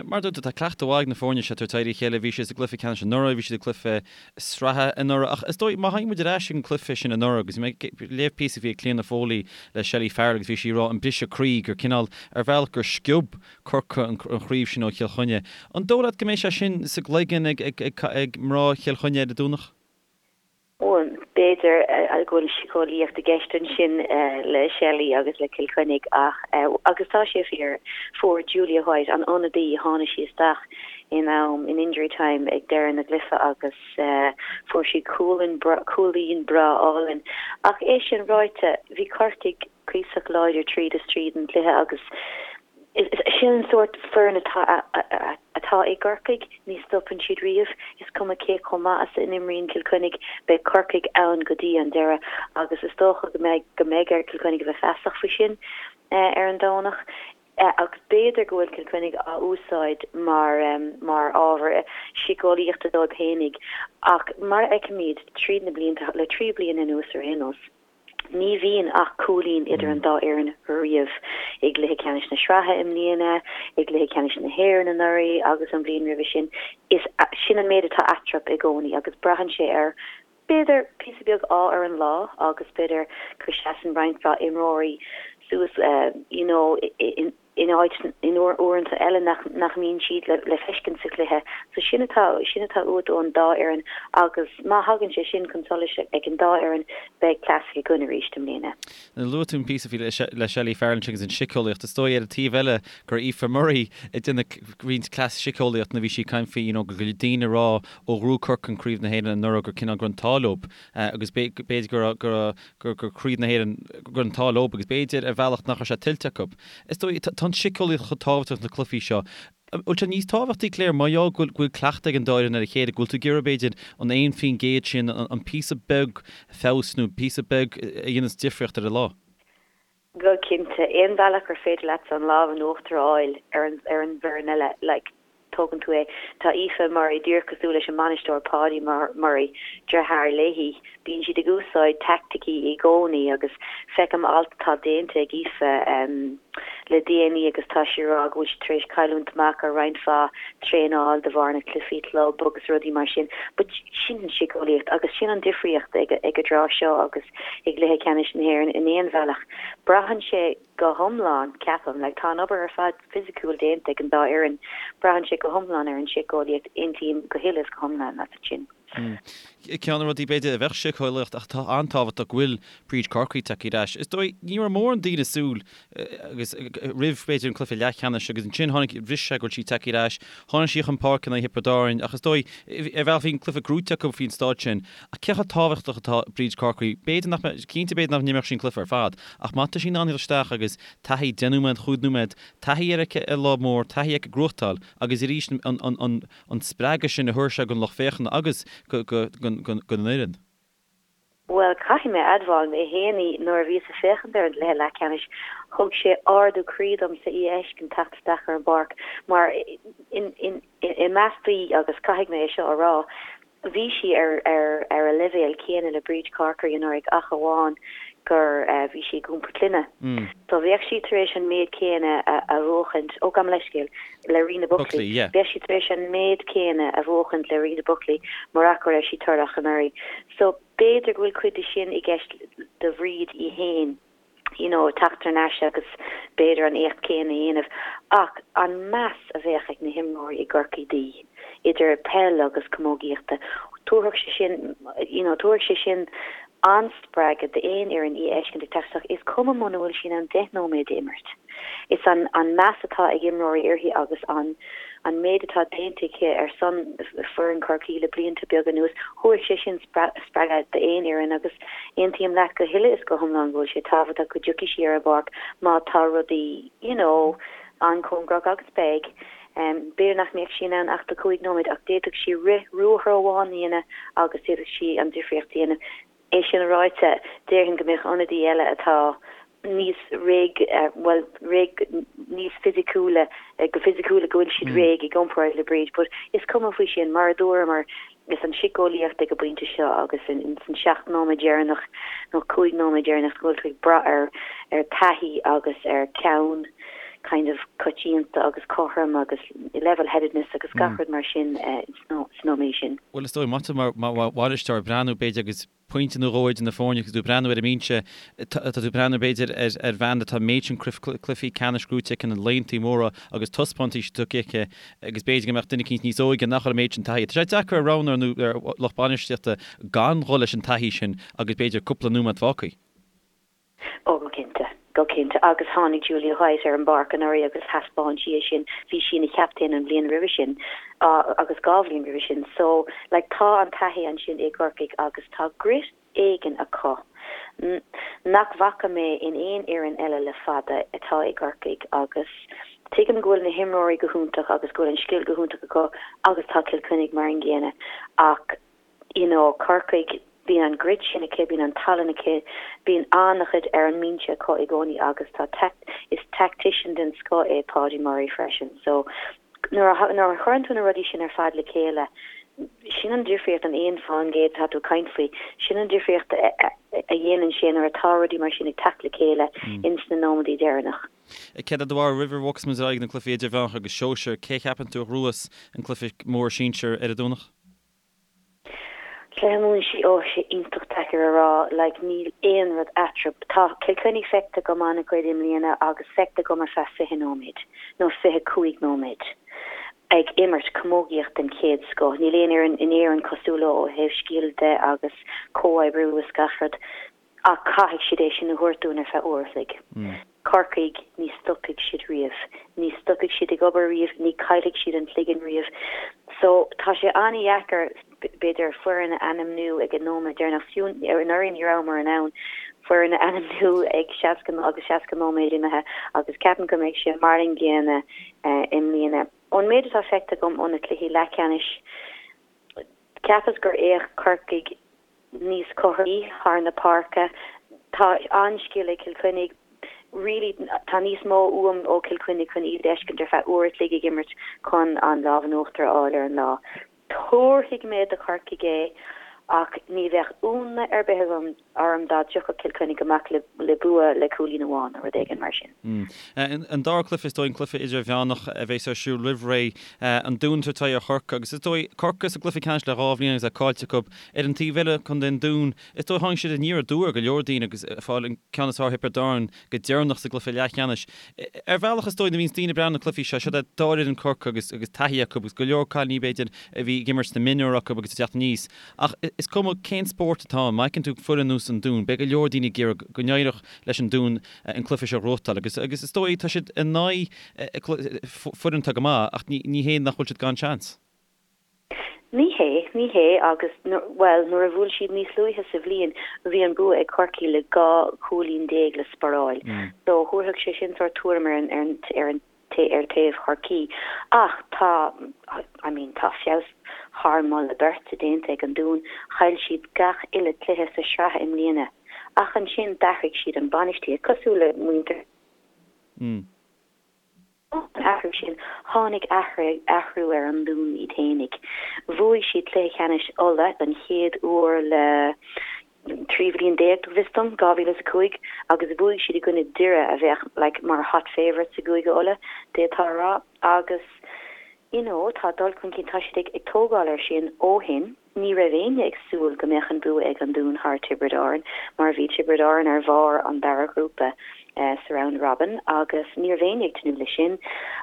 S1: Mar a dúirt tú, tá cleachtadh mhaith ag na foirne seo tar éis éirí a chéile. Bhí siad sa gcluiche ceannais anuraidh, bhí siad i gcluiche sraithe anuraidh. Ach is dóigh, má théann muid ar ais ag an gcluiche sin anuraidh, agus bhí mé ag léamh píosa a bhí ag Cliona Foley le Shelley Farrell agus bhí sí ag rá an briseadh croí gur cineál, ar bhealach, gur sciob Corcaigh an chraobh sin ó Chill Chainnigh. An dóigh leat go mbeidh sé sin sa gcloigeann ag mná Chill Chainnigh ar an Domhnach?
S5: Bhuel, b'fhéidir go bhfuil síceolaíocht i gceist ansin le Shelley agus le Cill Chainnigh ach, agus tá sé fíor, fuair Julia White, an ionadaí, tháinig sí isteach in am, in injury time ag deireadh na gcluiche agus fuair sí cúilín cúilín breá álainn. Ach é sin ráite, bhí Corcaigh cuíosach láidir tríd is tríd an gcluiche agus. Sin an sórt foireann atá atá i gCorcaigh, ní stopann siad riamh. Is cuma cé chomh maith is a n-imríonn Cill Chainnigh, beidh Corcaigh ann go dtí an deireadh agus is dócha go mbeidh go mbeidh ar Chill Chainnigh a bheith feasach faoi sin ar an Domhnach. Agus b'fhéidir go bhfuil Cill Chainnigh á úsáid mar mar ábhar síceolaíochta dóibh fhéinig ach mar a fheicimid tríd na blianta, le 3 bliana anuas ar aon nós, Ní bhíonn ach cúilín idir an dá fhoireann riamh, i gcluiche ceannais na sraithe i mbliana, i gcluiche ceannais na hÉireann anuraidh agus an bhliain roimhe sin. Is sin an méid atá eatarthu i gcónaí agus braitheann sé ar, b'fhéidir, píosa beag ádh ar an lá agus b'fhéidir go seasann roinnt mhaith imreoirí suas you know in in áit in uaireanta eile nach nach mbíonn siad le le feiscint sa chluiche. So sin atá sin atá uait ón dá fhoireann agus má thagann sé sin chun solais ag an dá fhoireann beidh classic againn arís i mbliana.
S1: Luaigh tú an píosa faoi le Shelley Farrell ansin agus an síceolaíocht. Is dóigh ar an taobh eile go raibh Aoife Murray ag déanamh roinnt cleas síceolaíocht nuair a bhí sí ag caint faoi you know go bhfuil daoine ag rá ó ghnóthaigh Corcaigh Craobh na hÉireann anuraidh gur cineál go raibh an t-ádh leo agus b'fhéidir go raibh go raibh gur gur Craobh na hÉireann, go raibh an t-ádh leo agus b'fhéidir ar bhealach nach raibh sé tuillte acu. Is dóigh, tá an síceolaíocht chomh tábhachtach sna cluichí seo. An bhfuil sé níos tábhachtaí, Claire, mar gheall go bhfuil cleachtadh ag an dá fhoireann ar a chéile, go bhfuil tú ag iarraidh b'fhéidir an 1% sin, an píosa beag feabhais nó píosa beag a dhéanas difríocht ar an lá?
S5: Go cinnte, aon bhealach gur féidir leatsa an lámh in uachtar a fháil ar an ar an bhfoireann eile, like, tógann tú é. Tá Aoife Murray díreach cosúil leis an mbainisteoir Paudie Murray, deartháir léi. Bíonn siad ag úsáid teaicticí i gcónaí agus feicim alt atá déanta ag Aoife le déanaí agus tá sí ag rá go bhfuil siad tar éis cailliúint amach ar roinnt mhaith traenáil de bharr na cluichí club agus rudaí mar sin. But sin an síceolaíocht agus sin an difríocht ag ag an dtráth seo agus i gcluiche ceannais na hÉireann in aon bhealach. Braitheann sé go hiomlán, ceapaim, like tá an obair ar fad fisiciúil déanta ag an dá fhoireann, braitheann sé go hiomlán ar an síceolaíocht, aontaím go huile is go hiomlán leat ansin.
S1: Ceann de na rudaí b'fhéidir a bheadh síceolaíocht ach atá an-tábhachtach go bhfuil Bríd Corkery tagtha ar ais. Is dóigh, ní raibh mórán daoine ag súil agus roimh b'fhéidir an cluiche leathcheannais agus ansin tháinig bhris sé go bhfuil sí tagtha ar ais. Tháinig sí chun páirce in aghaidh Thiobraid Árann ach is dóigh, ar bhealach bhí an cluiche gnóite acu faoin staid sin. Ach cé chomh tábhachtach atá Bríd Corkery? B'fhéidir nach mbeadh, cinnte b'fhéidir nach n-imreodh sí an cluiche ar fad ach má tá sí in ann dul isteach agus taithí 10 nóiméad, 5 nóiméad, taithí aici ar lá mór, taithí aici gnóthachtáil agus arís an, an, an, an spreagadh sin a thabharfaidh sé don lucht féachana agus don fhoireann.
S5: Bhuel, caithfidh mé a admháil, mé fhéin, nuair a bhíos ag féachaint ar an gcluiche leathcheannais, thug sé ardú croí domsa í a fheiscint teacht isteach ar an bpáirc mar i measc daoine, agus caithfidh mé é seo a rá, bhí sí ar ar ar a leibhéal céanna le Bríd Corkery anuraidh ach amháin gur bhí sí ag iompar clainne. So bheadh sí tar éis an méid céanna a bhuachaint, ó gabh mo leithscéal, le Rena Buckley, bheadh sí tar éis an méid céanna a bhuachaint le Rena Buckley murach go raibh sí torrach anuraidh. So b'fhéidir go bhfuil cuid de sin i gceist do Bhríd í fhéin, you know, teacht thar n-ais agus b'fhéidir an éacht céanna a dhéanamh. Ach an meas a bheadh ag na himreoirí i gCorcaigh di, idir peil agus camógaíochta, tabharfadh sé sin, you know, tabharfaidh sé sin an-spreagadh d'aon fhoireann í a fheiscint ag teacht isteach, is cuma muna bhfuil sí in ann 10 nóiméad a imirt. Is an an meas atá ag imreoirí uirthi agus an an méid atá déanta aici ar son foireann Chorcaí le blianta beaga anuas, thabharfadh sé sin spreagadh d'aon fhoireann agus aontaím leat go huile is go hiomlán go bhfuil sé tábhachtach go dtiocfaidh sí ar an bpáirc má tá rudaí you know an-chóngarach agus beidh. B'fhéidir nach mbeadh sí in ann ach do chúig nóiméad ach d'fhéadfadh sí rith ruathar amháin a dhéanamh agus d'fhéadfadh sí an difríocht a dhéanamh. É sin ráite, déarfainn go mbeadh ionadaí eile atá níos réidh, bhuel, réidh, níos fisiciúla, go fisiciúil go bhfuil siad réidh i gcomparáid le Bríd but is cuma faoi sin, mar a dúramar, is an síceolaíocht ag an bpointe seo agus in san 7 nóiméad deireanach nó 5 nóiméad deireanach go bhfuil tú ag brath ar ar taithí agus ar ceann kind of coitianta agus cothrom agus level-headedness agus gach rud mar sin sna nóiméid sin.
S1: Bhuel is dóigh, má tá tú mar bhainisteoir ag breathnú b'fhéidir agus pointe nó dhó idir na foirne agus tú ag breathnú ar an mbinse, tá tú ag breathnú b'fhéidir ar bhean atá an méid sin cluichí ceannais gnóite aici, na laethanta móra agus taispeántais tugtha aici agus b'fhéidir go mbeadh duine eicínt níos óige nach bhfuil an méid sin taithí. Tá sé deacair ar roghnóir nó ar lucht bainistíochta gan dhul leis an taithí sin agus b'fhéidir cúpla nóiméad fágtha.
S5: Ó, go cinnte. Go cinnte. Agus tháinig Julia White ar an bpáirc anuraidh agus thaispeáin sí é sin. Bhí sí ina chaptaen an bhliain roimhe sin agus 2 bhliain roimhe sin. So, like, tá an taithí ansin i gCorcaigh agus tá grit éigin acu nach bhfaca mé in aon fhoireann eile le fada atá i gCorcaigh agus. Tuigim go bhfuil na himreoirí go hiontach agus go bhfuil an scil go hiontach acu agus tá Cill Chainnigh mar an gcéanna ach you know Corcaigh, bíonn an grit sin aici, bíonn an tallann aici, bíonn an-chuid ar an mbinse acu i gcónaí agus tá is tactician den scoth é Paudie Murray freisin so nuair a nuair a chuireann tú na rudaí sin ar fad le chéile sin an difríocht, an 1% atá tú ag caint faoi, sin an difríocht a dhéanann sé nuair atá rudaí mar sin ag teacht le chéile ins na nóiméadaí deireanach.
S1: Céard é do bharúil roimh a bhogfas muid ar aghaidh na cluichí idirmheánach agus sóisir, cé a cheapann tú a ghnóthós an cluiche mór sinsir ar an Domhnach?
S5: Cluiche mór sin, ó, sé iontach deacair a rá, like níl aon rud eatarthu. Tá Cill Chainnigh feicthe agam an-chuid i mbliana agus feicthe agam ar feadh 20 nóiméad nó 25 nóiméad ag imirt camógaíocht den chéad scoth. Níl aon fhoireann in Éirinn cosúil leo ó thaobh scil de agus comhoibriú is gach rud. Ach caithfidh siad é sin a thabhairt dúinn ar feadh uair a chloig. Corcaigh, ní stopfaidh siad riamh. Ní stopfaidh siad ag obair riamh, ní chaillfidh siad an cloigeann riamh. So, tá sé an-dheacair, b'fhéidir, foireann a ainmniú ag an nóiméad deireanach. Fiú anuraidh ní rabhamar in ann foireann a ainmniú ag 60 agus 60 nóiméad imithe agus ceapaim go mbeidh sé mar an gcéanna i mbliana. Ón méid atá feicthe agam ó na cluichí leathcheannais, cheapas gur fhéach Corcaigh níos cothromaí thar na páirce. Tá an-scil ag Cill Chainnigh. Really, tá níos mó uaim ó Chill Chainnigh chun iad a fheiscint ar feadh uair a chloig ag imirt chun an lámh in uachtar a fháil ar an lá. Tabharfaidh mé do Chorcaigh é ach ní bheadh ionadh ar bith agam orm dá dtiocfadh Cill Chainnigh amach le bua le cúilín amháin nó rud éigin mar sin.
S1: An dara cluiche, is dóigh, an cluiche idirmheánach a bheas ar siúl roimh ré, an Dún ag tabhairt aghaidh ar Chorcaigh agus is dóigh, Corcaigh sa gcluiche ceannais le dhá bhliain agus é caillte acu. Ar an taobh eile, Contae an Dúin, is dóigh tháinig siad aniar aduaidh ar go leor daoine agus ag fáil an ceann is fearr ar Thiobraid Árann go deireanach sa gcluiche leathcheannais. Ar bhealach is dóigh nuair a bhíonns daoine ag breathnú ar na cluichí seo, siod é dá fhoireann Corcaigh agus agus taithí acu agus go leor cailíní b'fhéidir a bhí ag imirt sna mionúir acu agus ag teacht aníos. Ach is cuma cén spórt atá ann, má fheiceann tú foireann ar nós an Dúin, beidh go leor daoine ag iarraidh go n-éireodh leis an Dún an cluiche seo a ghnóthachtáil agus agus is dóigh tá siad in aghaidh foireann atá go maith ach ní hé nach bhfuil siad gan seans.
S5: Ní hé, ní hé agus, bhuel, nuair a bhuail siad níos luaithe sa bhliain, bhí an bua ag Corcaigh le 12 chúilín le sparáil. So, thabharfadh sé sin sórt tuairim ar an, ar an, ar an, ar taobh Chorcaí. Ach tá, I mean, tá feabhas thar moladh beirte déanta ag an Dún. Chaill siad gach uile cluiche sa sraith i mbliana. Ach ansin d'athraigh siad an bainistíocht, cosúil le muintir. Ón athrú sin, tháinig athrú ar an Dún iad fhéinig. Bhuaigh siad cluiche ceannais Uladh don chéad uair le 13 bhliain, go bhfios dom, 2005, agus bhuaigh siad i gcoinne Doire a bheadh like mar hot favourites i gCúige Uladh, d'fhéadfá a rá. Agus you know tá dul chun cinn, tá siad ag tógáil air sin ó shin. Ní raibh éinne ag súil go mbeadh an bua ag an Dún thar Tiobraid Árann mar bhí Tiobraid Árann ar bharr an dara ghrúpa sa Round Robin agus ní raibh éinne ag tnúth leis sin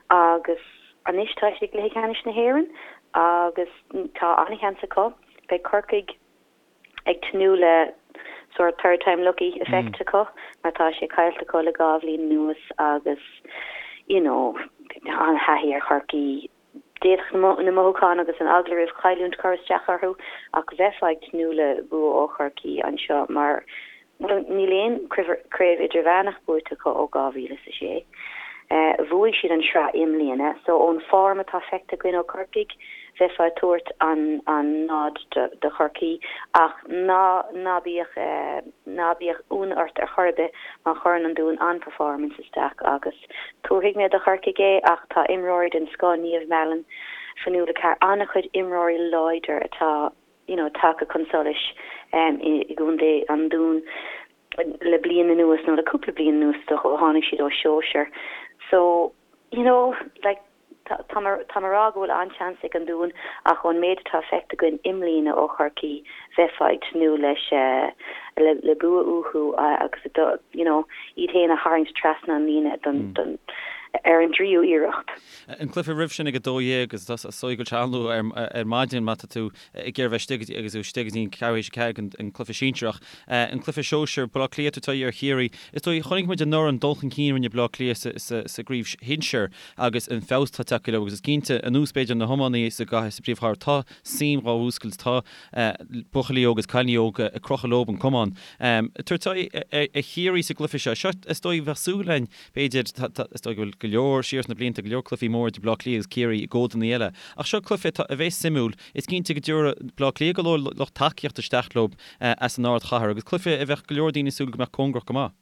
S5: agus anois tá siad i gcluiche ceannais na hÉireann agus tá an-sheans acu. Beidh Corcaigh ag tnúth le sórt third time lucky effect acu mar tá sé caillte acu le 2 bhliain anuas agus you know an-thaithí ar Chorcaigh. D'fhéadfadh na mothúcháin agus an eagla roimh chailliúint cur isteach orthu ach bheifeá ag tnúth le bua ó Chorcaí anseo mar, bhuel, níl aon chraobh idirmheánach buaite acu ó 2006. Bhuaigh siad an sraith i mbliana so ón form atá feicthe againn ó Chorcaigh, bheifeá ag tabhairt an an nod do Chorcaí ach ná ná bíodh ná bíodh ionadh ort ar chor ar bith má chuireann an Dún an-performance isteach agus Tabharfaidh mé do Chorcaigh é ach tá imreoirí den scoth, Niamh Mallon, Fionnuala Carr, an-chuid imreoirí láidir atá you know tagtha chun solais i gcontae an Dúin le bliain anuas nó le cúpla bliain anuas is dócha ó tháinig siad ó shóisir. So, you know, like Tá mé ag rá go bhfuil an-seans ag an Dún ach ón méid atá feicthe againn i mbliana ó Chorcaí, bheifeá ag tnúth leis le bua uathu agus you know iad féin a tharraingt trasna an líne don don ar an dtríú iarracht.
S1: An cluiche roimh sin ag 12 agus is dóigh go bhfuil sé an-luath ar maidin má tá tú ag iarraidh bheith istigh agus tú istigh go dtí an ceathrú théis 4 an cluiche sinsearach. An cluiche sóisir, Baile Átha Cliath ag tabhairt aghaidh ar Chiarraí. Is dóigh, chonaic muid anuraidh an dul chun cinn a rinne Baile Átha Cliath sa gcraobh shinsir agus an feabhas atá tagtha leo agus is cinnte, anuas b'fhéidir na hiománaithe sa gcathair, sa bpríomhchathair, tá suim dhá mhúscailt, tá buachaillí óga agus cailíní óga ag crochadh leo an camán. Tabhairt aghaidh ar Chiarraí sa gcluiche seo. Seo, is dóigh, bheadh súil againn, b'fhéidir, is dóigh go bhfuil. go leor siar sna blianta, go leor cluichí móra idir Baile Átha Cliath agus Ciarraí i gcódanna eile. Ach seo cluiche atá, a bheas suimiúil. Is cinnte go dtabharfaidh Baile Átha Cliath go leor lucht tacaíochta isteach leo as an ardchathair agus cluiche a bheadh go leor daoine ag súil go mbeadh cóngarach go maith.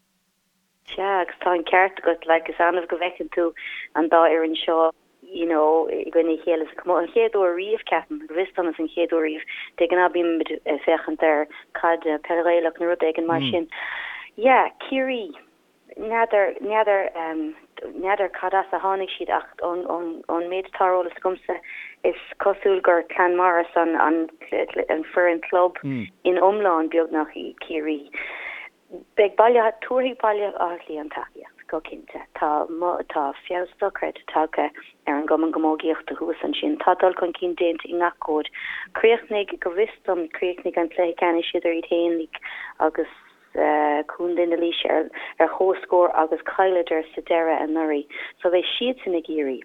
S5: Sea, agus tá an ceart agat, like, is annamh go bhfeiceann tú an dá fhoireann seo, you know, i gcoinne a chéile sa chomórtas. An chéad uair riamh, ceapaim, go bhfios dom is an chéad uair riamh. De ghnáth bímid ag féachaint ar caid, peil Ghaelach nó rud éigin mar sin. Yeah, Ciarraí. N'fheadar, n'fheadar, n'fheadar cad as a tháinig siad ach ón, ón, ón méid atá ar eolas agamsa is cosúil gur Clann Morris an, an, an foireann club in iomlán beagnach í Ciarraí. Beidh Baile Átha, tabharfaidh Baile Átha Cliath an tacaíocht, go cinnte. Tá, tá feabhas dochreidte tagtha ar an gcumann camógaíochta thuas ansin. Tá dul chun cinn déanta i ngach cód. Chríochnaigh, go bhfios dom, chríochnaigh an cluiche ceannais idir iad féin agus Contae na Laoise ar ar chomhscór agus chailleadar sa deireadh anuraidh. So beidh siadsan ag iarraidh.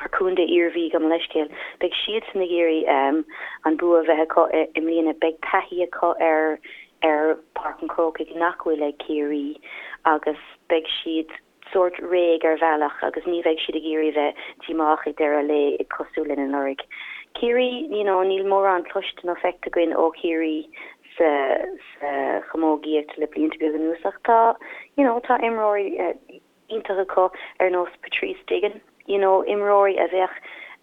S5: ar Contae Iarmhí, gabh mo leithscéal. Beidh siadsan ag iarraidh an bua a bheith acu i mbliana. Beidh taithí acu ar ar Páirc an Chrócaigh nach bhfuil ag Ciarraí agus beidh siad sórt réidh ar bhealach agus ní bheidh siad ag iarraidh a bheith díomách ag deireadh an lae cosúil linn anuraidh. Ciarraí, you know, níl mórán cloiste nó feicthe againn ó Chiarraí sa sa chamógaíocht le blianta beaga anuas ach tá, you know, tá imreoirí iontach acu ar nós Patrice Digan, you know, imreoirí a bheadh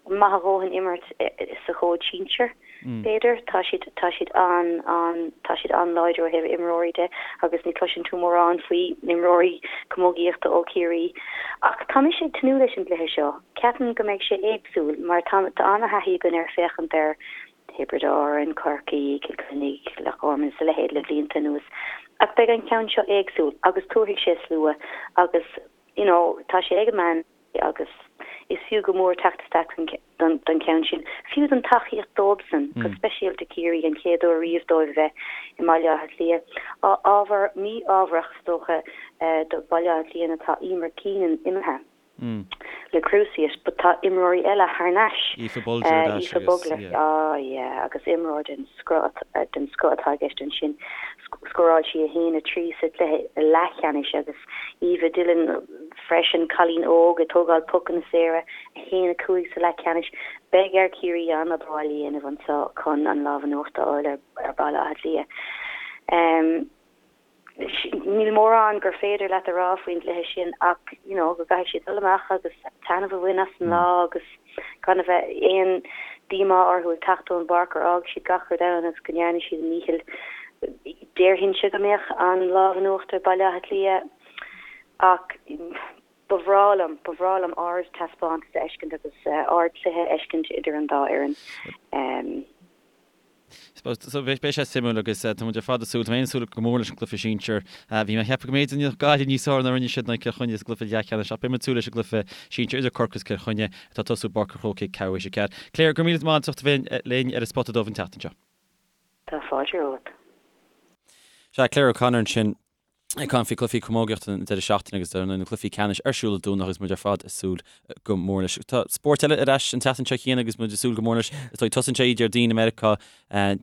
S5: maith a dhóthain imirt sa chód sinsir, b'fhéidir. Tá siad, tá siad an, an, tá siad an-láidir ó thaobh imreoirí de agus ní chloiseann tú mórán faoi imreoirí camógaíochta ó Chiarraí. Ach tá mise ag tnúth leis an gcluiche seo. Ceapaim go mbeidh sé éagsúil mar tá, tá an-thaithí againn ar féachaint ar Thiobraid Árann, Corcaigh, Cill Chainnigh, Loch Garman is a leithéid le blianta anuas. Ach beidh an ceann seo éagsúil agus tabharfaidh sé slua agus you know tá sé ag an meán agus is fiú go mór teacht isteach don don cheann sin. Fiú don tacaíocht dóibhsan, go speisialta Ciarraí, an chéad uair riamh dóibh a bheith i mBaile Átha Cliath. Ábhar mí-ámharach is dócha do Bhaile Átha Cliath ná tá Eimear Keenan imithe. le cruciate but tá imreoirí eile thar n-ais.
S1: Aoife Bolger ar ais
S5: Aoife
S1: agus yeah.
S5: Ah yeah agus imreoir den scoth den scoth atá i gceist ansin. Scóráil sí 1, 3 sa chluiche leathcheannais agus Eva Dillon freisin, cailín óg ag tógáil pocanna saora, 1, 5 sa leathcheannais. Beidh ar Chiarraí an-obair bhaile a dhéanamh anseo chun an lámh in uachtar a fháil ar Bhaile Átha Cliath. Níl mórán gur féidir leat a rá faoin gcluiche sin ach you know go gcaithfidh siad dul amach agus taitneamh a bhain as an lá agus gan a bheith aon díomá orthu ag teacht ón bpáirc gur fhág siad gach rud ann agus go ndearna siad a ndícheall. Déarfainnse go mbeadh an lámh in uachtar ag Baile Átha Cliath ach ba bhreá liom, ba bhreá liom ard-taispeántas a fheiscint agus ard-chluiche a fheiscint idir an dá fhoireann.
S1: So beidh sé suimiúil agus tá muid ar fad ag súil, tá mé ag súil go mór leis an gcluiche sinsir. Bhí mé ag ceapadh go mb'fhéidir go ndéanfadh Gaillimh níos fearr ná a rinne siad in aghaidh Cill Chainnigh sa gcluiche leathcheannais ach beidh muid ag súil leis an gcluiche sinsir idir Corcaigh agus Cill Chainnigh atá ag tosú i bPáirc an Chrócaigh ceathrú théis a 4. Claire, go raibh míle maith agat as ucht a bheith linn ar an Spota Dubh an tseachtain seo.
S5: Tá fáilte romhat.
S1: Sea, Claire O'Connor ansin. Ag caint faoi chluichí camógaíochta an deireadh seachtaine agus dar ndóigh na cluichí ceannais ar siúl Dé Domhnaigh agus muid ar fad ag súil go mór leis. Tá spórt eile ar ais an tseachtain seo chéanna agus muid ag súil go mór leis. Is dóigh tosaíonn sé Déardaoin i Meiriceá,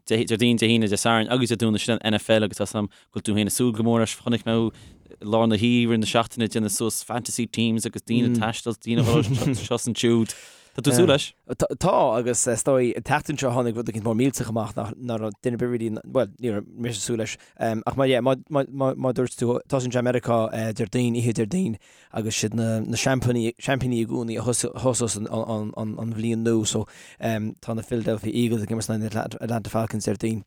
S1: Déardaoin, Dé hAoine, Dé Sathairn agus Dé Domhnaigh sin an NFL agus tá 's agam go bhfuil tú féin ag súil go mór leis. Chonaic mé thú i lár na hoíche na seachtaine ag déanamh suas fantasy teams agus daoine ag taisteal, daoine ag dul seo is ansiúd. Tá tú ag súil leis?
S2: Tá agus is dóigh an tseachtain seo tháinig rud éicint mór millteach amach nach raibh duine ar bith really, bhuel ní raibh mise ag súil leis. Ach má, yeah, má, má, má, má dúirt tú, tosaíonn sé i Meiriceá Déardaoin, oíche Déardaoin agus siad na, na seaimpíní, seaimpíní i gcónaí a thosós an, an, an, an bhliain nua so tá na Philadelphia Eagles ag imirt in aghaidh na Atlanta Falcons Déardaoin.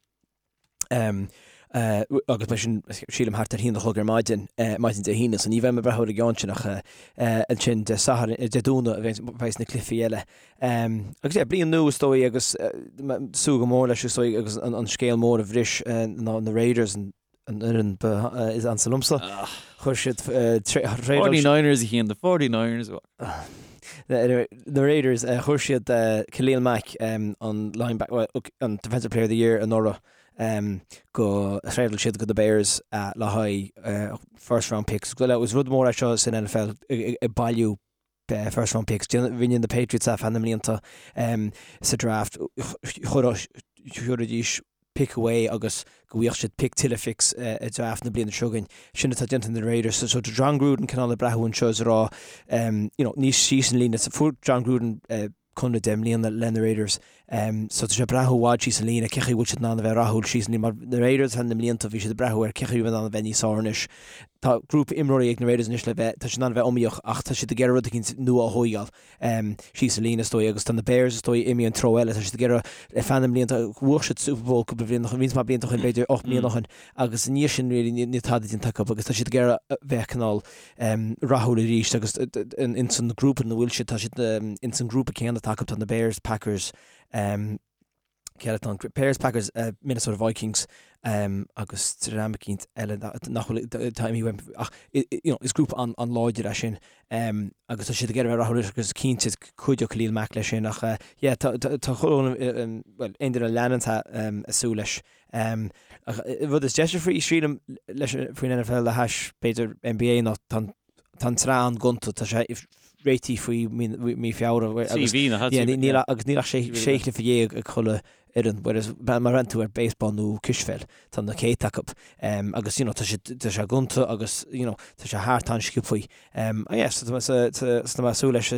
S2: Agus beidh sin, sílim, thart ar haon a chlog ar maidin, maidin Dé hAoine, so ní bheidh mé ag breathnú ar an gceann sin ach ansin Dé Sathairn, Dé Domhnaigh a bheidh na cluichí eile. Agus yeah, bliain nua is dóigh agus súil go mór leis is dóigh agus an scéal mór a bhris ná na Raiders, an fhoireann ba is ansa liomsa. Chuir siad
S1: 49ers a Chian, the 49ers.
S2: Na Raiders, chuir siad Khalil Mack, an linebacker, an Defensive Player of the Year anuraidh, go, thréadáil siad go na Bears le haghaidh first round picks. Is rud mór é seo san NFL ag bailiú first round picks. Rinne na Patriots é feadh na mblianta sa draft. Chuiridís. pick away agus go bhfaigheadh siad pick tuilleadh picks i draft na bliana seo chugainn. Sin atá déanta ag na Raiders. So tá Jon Gruden cineál ag breathnú anseo is ag rá you know níos síos an líne. Fuair Jon Gruden conradh 10 mbliana le na Raiders. So tá sé ag breathnú i bhfad síos an líne cé chaoi bhfuil siad in ann a bheith rathúil síos an líne mar na Raiders thar na mblianta bhí siad ag breathnú ar cé chaoi bhfuil in ann a bheith níos fearr anois. Tá grúpa imreoirí ag na Raiders anois le bheith tá siad in ann a bheith iomaíoch ach tá siad ag iarraidh rud eicínt nua a thóigeáil. síos an líne is dóigh agus tá na Bears is dóigh imithe an treo eile, tá siad ag iarraidh ar feadh na mblianta, bhuaigh siad Super Bowl cúpla bliain ó shin, roinnt mhaith blianta ó shin, b'fhéidir 8 mbliana ó shin agus i ndiaidh sin really níl tada déanta acu agus tá siad ag iarraidh bheith cineál rathúil arís agus ins an grúpa ina bhfuil siad, tá siad ins an grúpa céanna atá acu, tá na Bears, Packers, Cé eile atá ann? Bears, Packers, Minnesota Vikings agus dream eicínt eile nach bhfuil, tá imithe uaim ach you know is grúpa an-láidir é sin agus tá siad ag iarraidh a bheith rathúil agus cinnte cuideoidh Khalil Mack leis sin ach yeah tá tá chuile bhuel aon duine a leanann tá ag súil leis. Ach rud is deise faoi sílim leis faoin NFL le hais b'fhéidir NBA ná tá an Tá an tsraith an-ghonta, tá sé réitithe faoi mí Feabhra agus níl agus níl ach sé chluiche dhéag ag chuile fhoireann, whereas má bhreathnaíonn tú ar baseball nó cispheil, tá na céadta acu. Agus you know tá sé tá sé gonta agus you know tá sé thart an-sciobthaí. Yeah, so tá mé ag súil leis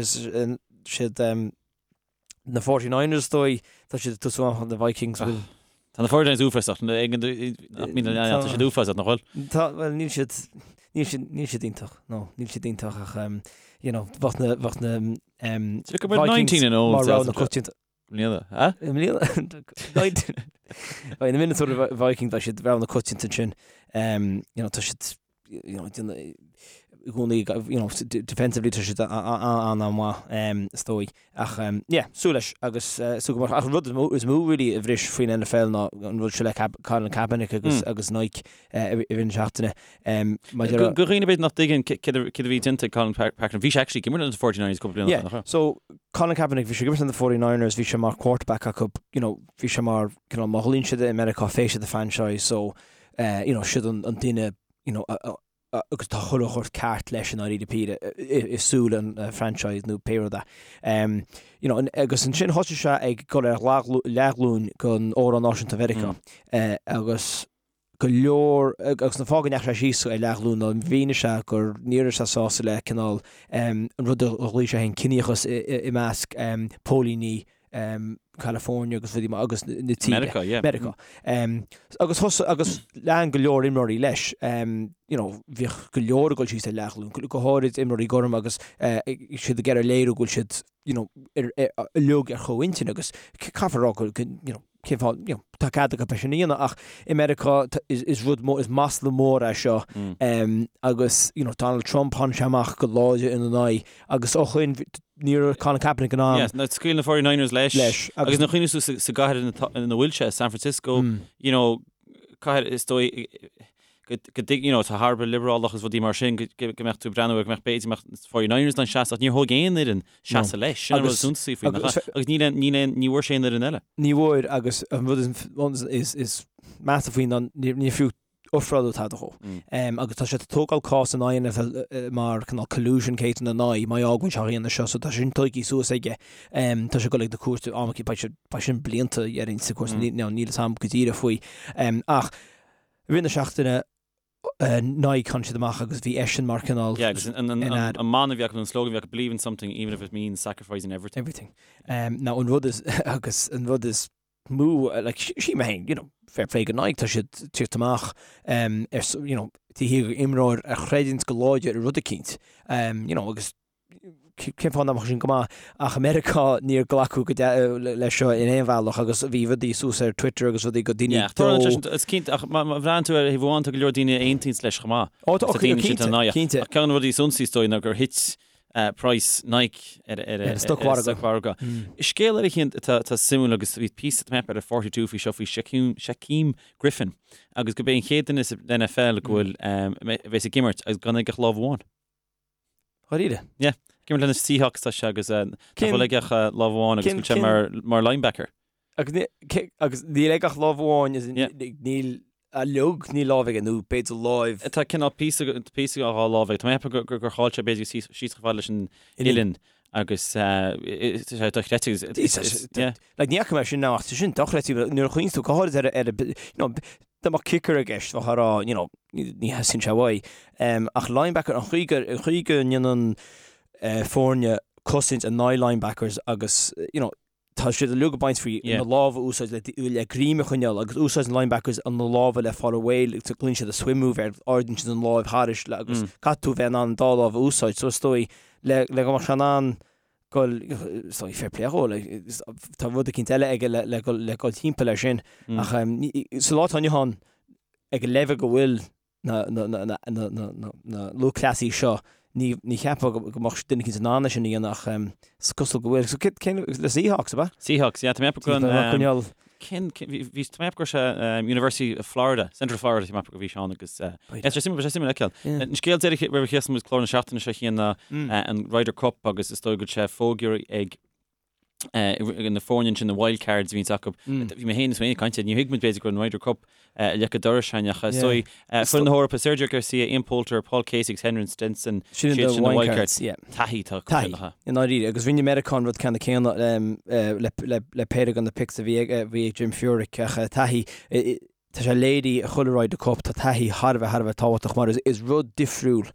S2: siad Na 49ers is dóigh, tá siad ag tosú amach na Vikings bhfuil.
S1: Tá na 49ers uafásach, tá siad uafásach, nach bhfuil?
S2: Tá, bhuel níl siad, níl siad, níl siad iontach, no, níl siad iontach ach um, you know, bheadh na, bheadh na um,
S1: Vikings
S2: mar rogha na coitianta.
S1: Mbliana, ha?
S2: Mbliana? Beidh na Minnesota Vikings, beidh siad rogha na coitianta ansin, um, you know, tá siad you know, i gcónaí, you know, defensively tá siad an-mhaith, is dóigh. Ach, yeah, súil leis agus súil go mór. Ach an rud is mó really a bhris faoin NFL ná an rud seo le Colin Kaepernick agus agus Nike i rith na seachtaine.
S1: Maidir le. Do dhaoine b'fhéidir nach dtuigeann céard a bhí déanta ag Colin Kaepernick, bhí sé actually ag imirt leis na 49ers cúpla bliain ó shin, nach
S2: raibh? Yeah, so Colin Kaepernick, bhí sé ag imirt leis na 49ers, bhí sé mar quarterback acu, you know, bhí sé mar, cineál, má ghlaonn siad i Meiriceá face of the franchise, so, you know, siad an duine, you know, agus tá chuile shórt ceart leis i ndáiríre píre i súil an franchise nó pé rud é. You know, agus ansin thosaigh sé ag dul ar leathghlúin don Amhrán Náisiúnta Mheiriceá agus go leor, agus an fáth go ndeachaigh sé síos ar leathghlúin ná mhínigh sé gur ní raibh sé sásta le cineál an rud a ghlaoigh sé féin ciníochas i measc póilíní California agus rudaí mar agus na tíre.
S1: Meiriceá, yeah.
S2: Meiriceá. Agus thosaigh, agus lean go leor imreoirí leis. You know, bhíodh go leor ag dul síos ar leathghlúin, go háirid imreoirí gorm agus siad ag iarraidh léiriú go bhfuil siad, you know, uilig ar chomhintinn agus caithfear a rá go, you know, cén fáth, you know, tá cead acu é sin a dhéanamh ach i Meiriceá is rud mór, is masla mór é seo agus, you know, Donald Trump, tháinig sé amach go láidir ina n-aghaidh agus ó shoin ní raibh Colin Kaepernick in ann.
S1: Yes, now scaoil na 49ers leis.
S2: Leis.
S1: Agus nuair a chuimhníos tú sa gcathair ina bhfuil sé, San Francisco, you know, cathair is dóigh go dtig, you know, tá thar a bheith liobrálach agus rudaí mar sin, go mbeadh tú ag breathnú ar go mbeadh b'fhéidir mbeadh 49ers in ann seasamh, ach níor thóg aon fhoireann seasamh leis, sin an rud is suntasaí faoi, nach ea? Agus níl aon, níl aon, ní bhfuair sé aon fhoireann eile.
S2: Ní bhfuair agus an rud is, is measa faoi ná níor fiú ofráladh tada dhó. Agus tá sé ag tógáil cás in aghaidh an NFL mar cineál collusion case ina n-aghaidh má fhágann sé á dhéanamh seo so tá sin tógtha suas aige. Tá sé ag dul ag na cúirte am beidh sé beidh sin blianta dhéarfainn sa chúirt níl níl a fhios agam go díreach faoi. Ach i rith na seachtaine Nike tháinig siad amach agus bhí eisean mar cineál
S1: Yeah, agus an, an, an, an mana a bhí acu, an slogan a bhí acu, believe in something even if it means sacrificing everything.
S2: Everything. Now an rud is agus an rud is mó, like, sílim féin, you know, fair play go Nike, tá siad ag tíocht amach um, ar, you know, taobh thiar d'imreoir a chreideanns go láidir i rud eicínt, um, you know, agus cén fáth nach mbeadh sin go maith, ach i Meiriceá níor glacadh go leis seo in aon bhealach agus bhí rudaí suas ar Twitter agus rudaí go daoine
S1: Yeah, dó. Is cinnte, ach má bhreathnaíonn tú ar thaobh amháin tá go leor daoine a aontaíonns leis chomh maith.
S2: Ó, tá, cinnte, cinnte.
S1: Ach ceann de na rudaí is iontasaí is dóigh ná gur thit praghas Nike ar an stocmhargadh. Scéal eile féin atá suimiúil agus bhí píosa tá mé ar 42 faoi seo faoi Shaquem Griffin agus gurb é an chéad duine sa NFL go bhfuil a bheas ag imirt agus gan aige ach lámh amháin.
S2: Dháiríre?
S1: Yeah. Ag imirt le na Seahawks tá sé agus nach bhfuil aige ach lámh amháin agus go bhfuil sé mar linebacker.
S2: Agus níl aige ach lámh amháin, níl uilig, níl lámh aige, nó b'fhéidir láimh.
S1: Tá cineál píosa píosa dhá lámh aige. Tá mé ag ceapadh gur chaill sé b'fhéidir síos chomh fada leis an uillinn. Agus tá sé dochreidte agus yeah.
S2: Like ní fhaca mé sin ach tá sin dochreidte nuair a chuimhníonn tú go háirid ar ar you know dá mbeadh kicker i gceist bheifeá ag rá you know ní theastaíonn sé uaidh. Ach linebacker an chaoi go an chaoi go ndéanann foirne cosaint in aghaidh linebackers agus you know tá siad uilig ag baint faoi na lámha a úsáid le le greim a choinneáil agus úsáideann linebackers na lámha le fáil réidh le glaonn siad a swim move air ardaíonn siad an láimh thairis le agus caithfidh tú bheith in ann an dá lámh a úsáid so is dóigh le le go mbeadh sé in ann goil is dóigh fair play dhó like tá rud eicínt eile aige le le le goil timpeall air sin ach sa lá atá inniu ann ag an leibhéal go bhfuil na lúthchleasaithe seo, ní cheapfá go mbeadh duine eicínt in ann é sin a dhéanamh ach is cosúil go bhfuil. So cén, le Seahawks, ab
S1: ea? Seahawks, yeah, tá mé ag ceapadh go an, cén, bhí, tá mé ag ceapadh go raibh sé University of Florida, Central Florida, tá mé ag ceapadh go bhí sé ann agus, yeah, sé suimiúil, sé suimiúil a fheiceáil. An scéal deiridh roimh a chríochnóidh muid clár na seachtaine seo a Chian ná an Ryder Cup agus is dóigh go bhfuil sé fógartha ag na foirne ansin, na wild cards a bhíonns acu. Bhí mé féin is mé ag caint, ní thuig muid b'fhéidir go raibh an Ryder Cup ag leic an dorais againn ach is dóigh foireann na hEorpa, Sergio Garcia, Ian Poulter, Paul Casey agus Henrik Stenson,
S2: Sin
S1: siad
S2: na
S1: sin na
S2: wild
S1: wild
S2: cards,
S1: cards.
S2: yeah.
S1: Taithí atá acu
S2: Taithí,
S1: sin, aha.
S2: i ndáiríre. Agus rinne Meiriceá an rud ceanna céanna le, le, le péire de na picks a bhí ag, bhí ag Jim Furyk ach taithí, Tá sé léirithe i chuile Ryder Cup, tá taithí thar a bheith, thar a bheith tábhachtach mar is rud difriúil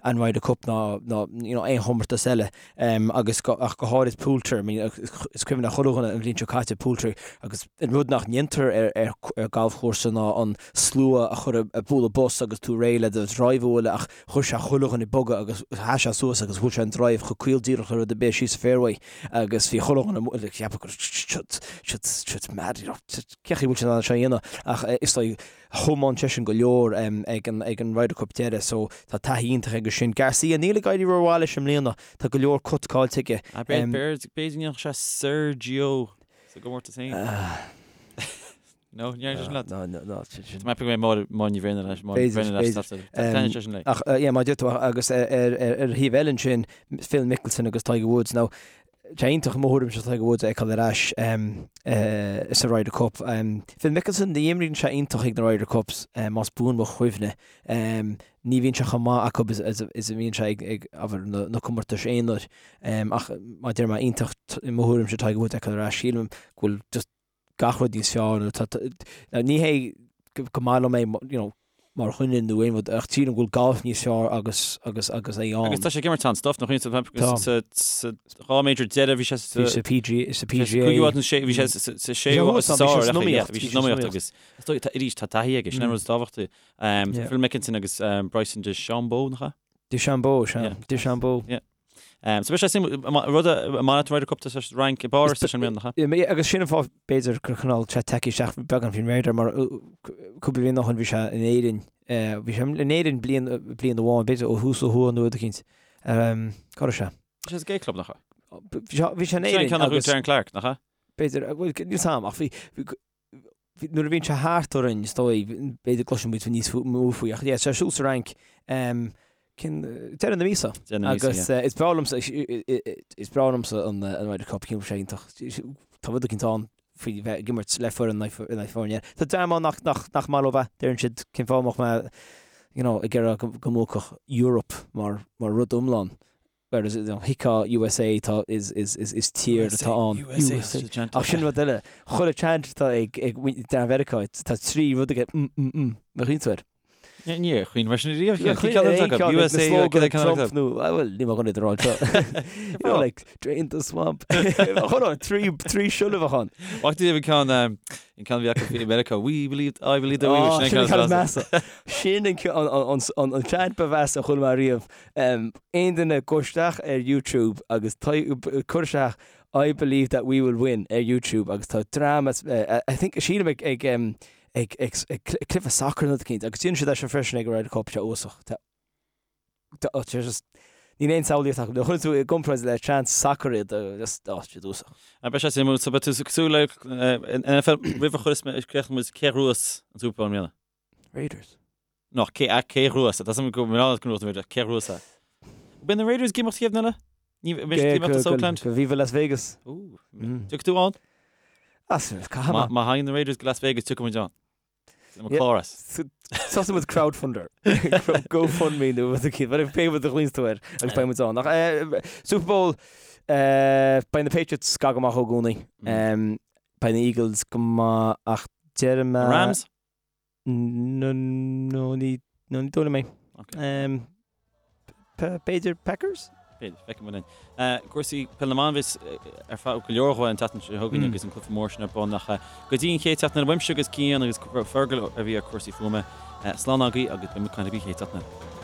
S2: an Ryder Cup ná ná you know aon chomórtas eile agus go, ach go háirid Poulter, I mean is cuimhin le chuile dhuine an bhliain seo caite Poulter agus an rud nach ndéantar ar ar ar galfchúrsa ná an slua a chur ag bualadh bos agus tú réidh le do drive a bhualadh ach chuir sé chuile dhuine ag bogadh agus sheas sé suas agus bhuail sé an drive chomh caol díreach le rud ar bith síos an fairway agus bhí chuile dhuine ag ceapadh go raibh siad siad mad you know Cén chaoi a bhfuil sé in ann seo a dhéanamh ach is dóigh thiomáin seisean go leor ag an ag an Ryder Cup deireadh so tá taithí iontach aige sin. Garcia, níl ag éirí rómhaith leis i mbliana, tá go leor cuts caillte aige.
S1: B'fhéidir go ndéanfadh sé Sergio sa gcomórtas féin. No, ní sin leat.
S2: No, no, no, sin sin.
S1: Tá mé ag ceapadh go mbeidh Máire Ní Bhraonáin leis, Máire Ní Bhraonáin leis,
S2: B'fhéidir, b'fhéidir.
S1: Tá sin léi.
S2: Ach yeah, mar a deir tú agus ar ar ar thaobh eile ansin Phil Mickelson agus Tiger Woods. Now Tá sé iontach i mo thuairimse Tiger Woods a fheiceáil ar ais sa Ryder Cup. Phil Mickelson, ní imríonn sé iontach ag na Ryder Cups, más buan mo chuimhne. Ní bhíonn sé chomh maith acu is a bhíonn sé ag, abair, na comórtais aonair. Ach mar a deir mé, iontach i mo thuairimse Tiger Woods a fheiceáil ar ais. Sílim go bhfuil just gach rud níos fearr nó tá, now ní hé go maith liom é you know mar dhuine nó aon rud ach sílim go bhfuil golf níos fearr agus agus agus é ann.
S1: Agus tá sé ag imirt an-stuff nach iontas
S2: Tá.
S1: sa sa dhá major deireadh bhí sé sa
S2: Bhí sa PG sa PGA.
S1: Cúigiú áit nó sé bhí sé sa sa séú
S2: thuas
S1: sa
S2: ann, bhí sé
S1: sár
S2: san iomaíocht,
S1: bhí
S2: bhí
S1: sé
S2: sé
S1: san
S2: san
S1: iomaíocht
S2: iomaíocht.
S1: agus is dóigh tá arís tá taithí aige sin an rud is tábhachtaí. Um,
S2: Yeah.
S1: Phil Mickelson agus um, Bryson DeChambeau nach ea?
S2: DeChambeau, sea.
S1: Yeah.
S2: DeChambeau.
S1: Yeah. So beidh sé suimiúil, rud a mbainfidh an Ryder Cup tá sé sa Fhrainc i bPáras leis an mbliana, nach
S2: ea? Agus sin an fáth b'fhéidir gur cineál sé tagtha isteach beagán faoin radar mar cúpla bliain ó shin bhí sé in Éirinn, bhí sé in Éirinn bliain bliain amháin, b'fhéidir ó thús ó thuaidh nó rud eicínt. Cá raibh
S1: sé? Bhí sé sa Gay Club, nach
S2: ea? Bhí sé in Éirinn
S1: agus... Sin an ceann a bhuaigh Darren Clarke, nach ea?
S2: B'fhéidir, bhuel, níl 'fhios a'm ach bhí nuair a bhíonn sé thart orainn, is dóigh, b'fhéidir gcloiseann muid níos mó faoi, ach yeah, tá sé ar siúl sa Fhrainc, cinn, deireadh na míosa.
S1: Deireadh na míosa,
S2: Agus
S1: yeah.
S2: is breá liomsa, is breá liomsa an an Ryder Cup, ceapaim sé iontach. Tá rud eicínt ann faoi bheith ag imirt le foireann in aghaidh foirne. Tá dream ann nach, nach, nach maith leo é, deireann siad cén fáth a mbeadh mé, you know, ag iarraidh go, go mbuafadh Europe mar, mar rud iomlán. Whereas, you know, thuigfeá USA tá, is, is, is, is tír atá ann.
S1: USA, USA.
S2: Ach sin rud eile. Chuile chant atá ag, ag dream Mheiriceá, tá trí rud aige, mm, mm, mm, má chuimhníonn tú air.
S1: Ní, níor chuimhnigh mé sin riamh.
S2: Níor
S1: Cén ceann
S2: chuimhnigh
S1: atá
S2: aon
S1: acu?
S2: ceann ag na
S1: USA, cén
S2: slogan
S1: ceann
S2: Trump
S1: atá acu?
S2: nó, ah, well, níl mé chun iad a rá anseo. You know, like, drain the swamp. Hold on, trí, trí siollabach ann.
S1: Bhfaca tú an ceann, um, an ceann a bhí acu i Meiriceá, we believe, I believe that we,
S2: Oh,
S1: sin
S2: sin
S1: an
S2: an ceann
S1: ceann
S2: is measa. Sin an ceann, an, an, an, an chant ba mheasa a chuala mé riamh. Aon duine gabh isteach ar YouTube agus cuir isteach I believe that we will win ar YouTube agus tá dream as I think sílim ag ag ag ag cluiche sacair nó rud eicínt agus déanann siad é seo freisin ag an Ryder Cup sé uafásach. Tá tá sé just níl aon samhlaíocht acu. Nuair a chuireann tú i gcomparáid le chants sacair iad just oh siad uafásach.
S1: Beidh sé suimiúil so beidh tú cosúil le NFL roimh a chuireas mé críochnóidh muid cé a ghnóthós an Super Bowl i mbliana?
S2: Raiders.
S1: No, cé, cé a ghnóthós? Tá suim go mbeadh go mbeadh cé a ghnóthós é? Beidh na Raiders ag imeacht chéad eile? Ní bheidh siad ag imeacht as Oakland?
S2: Go Viva Las Vegas.
S1: Tiocfaidh tú ann?
S2: As, caithfidh mé.
S1: Má thagann na Raiders go Las Vegas, tiocfaidh muid ann. Le mo chlár as.
S2: Tosóidh muid crowdfunder. GoFundMe nó rud éicint. Bhuel, pé rud a ghlaonns tú air agus beidh muid ann. Ach Super Bowl, beidh na Patriots go maith i gcónaí. Beidh na Eagles go maith ach déarfaidh mé...
S1: Rams?
S2: No, no, ní, no, ní dóigh liom é. B'fhéidir Packers?
S1: B'fhéidir, feicfidh muid linn. Cúrsaí peil na mban a bheas ar fáil go leor dhó an tseachtain seo chugainn agus an cluiche mór sin ar bun ach go dtí an chéad tseachtain eile uaimse agus Cian agus Fergal a bhí ar cúrsaí fuaime. Slán agaibh agus beidh muid ag caint libh an chéad tseachtain eile.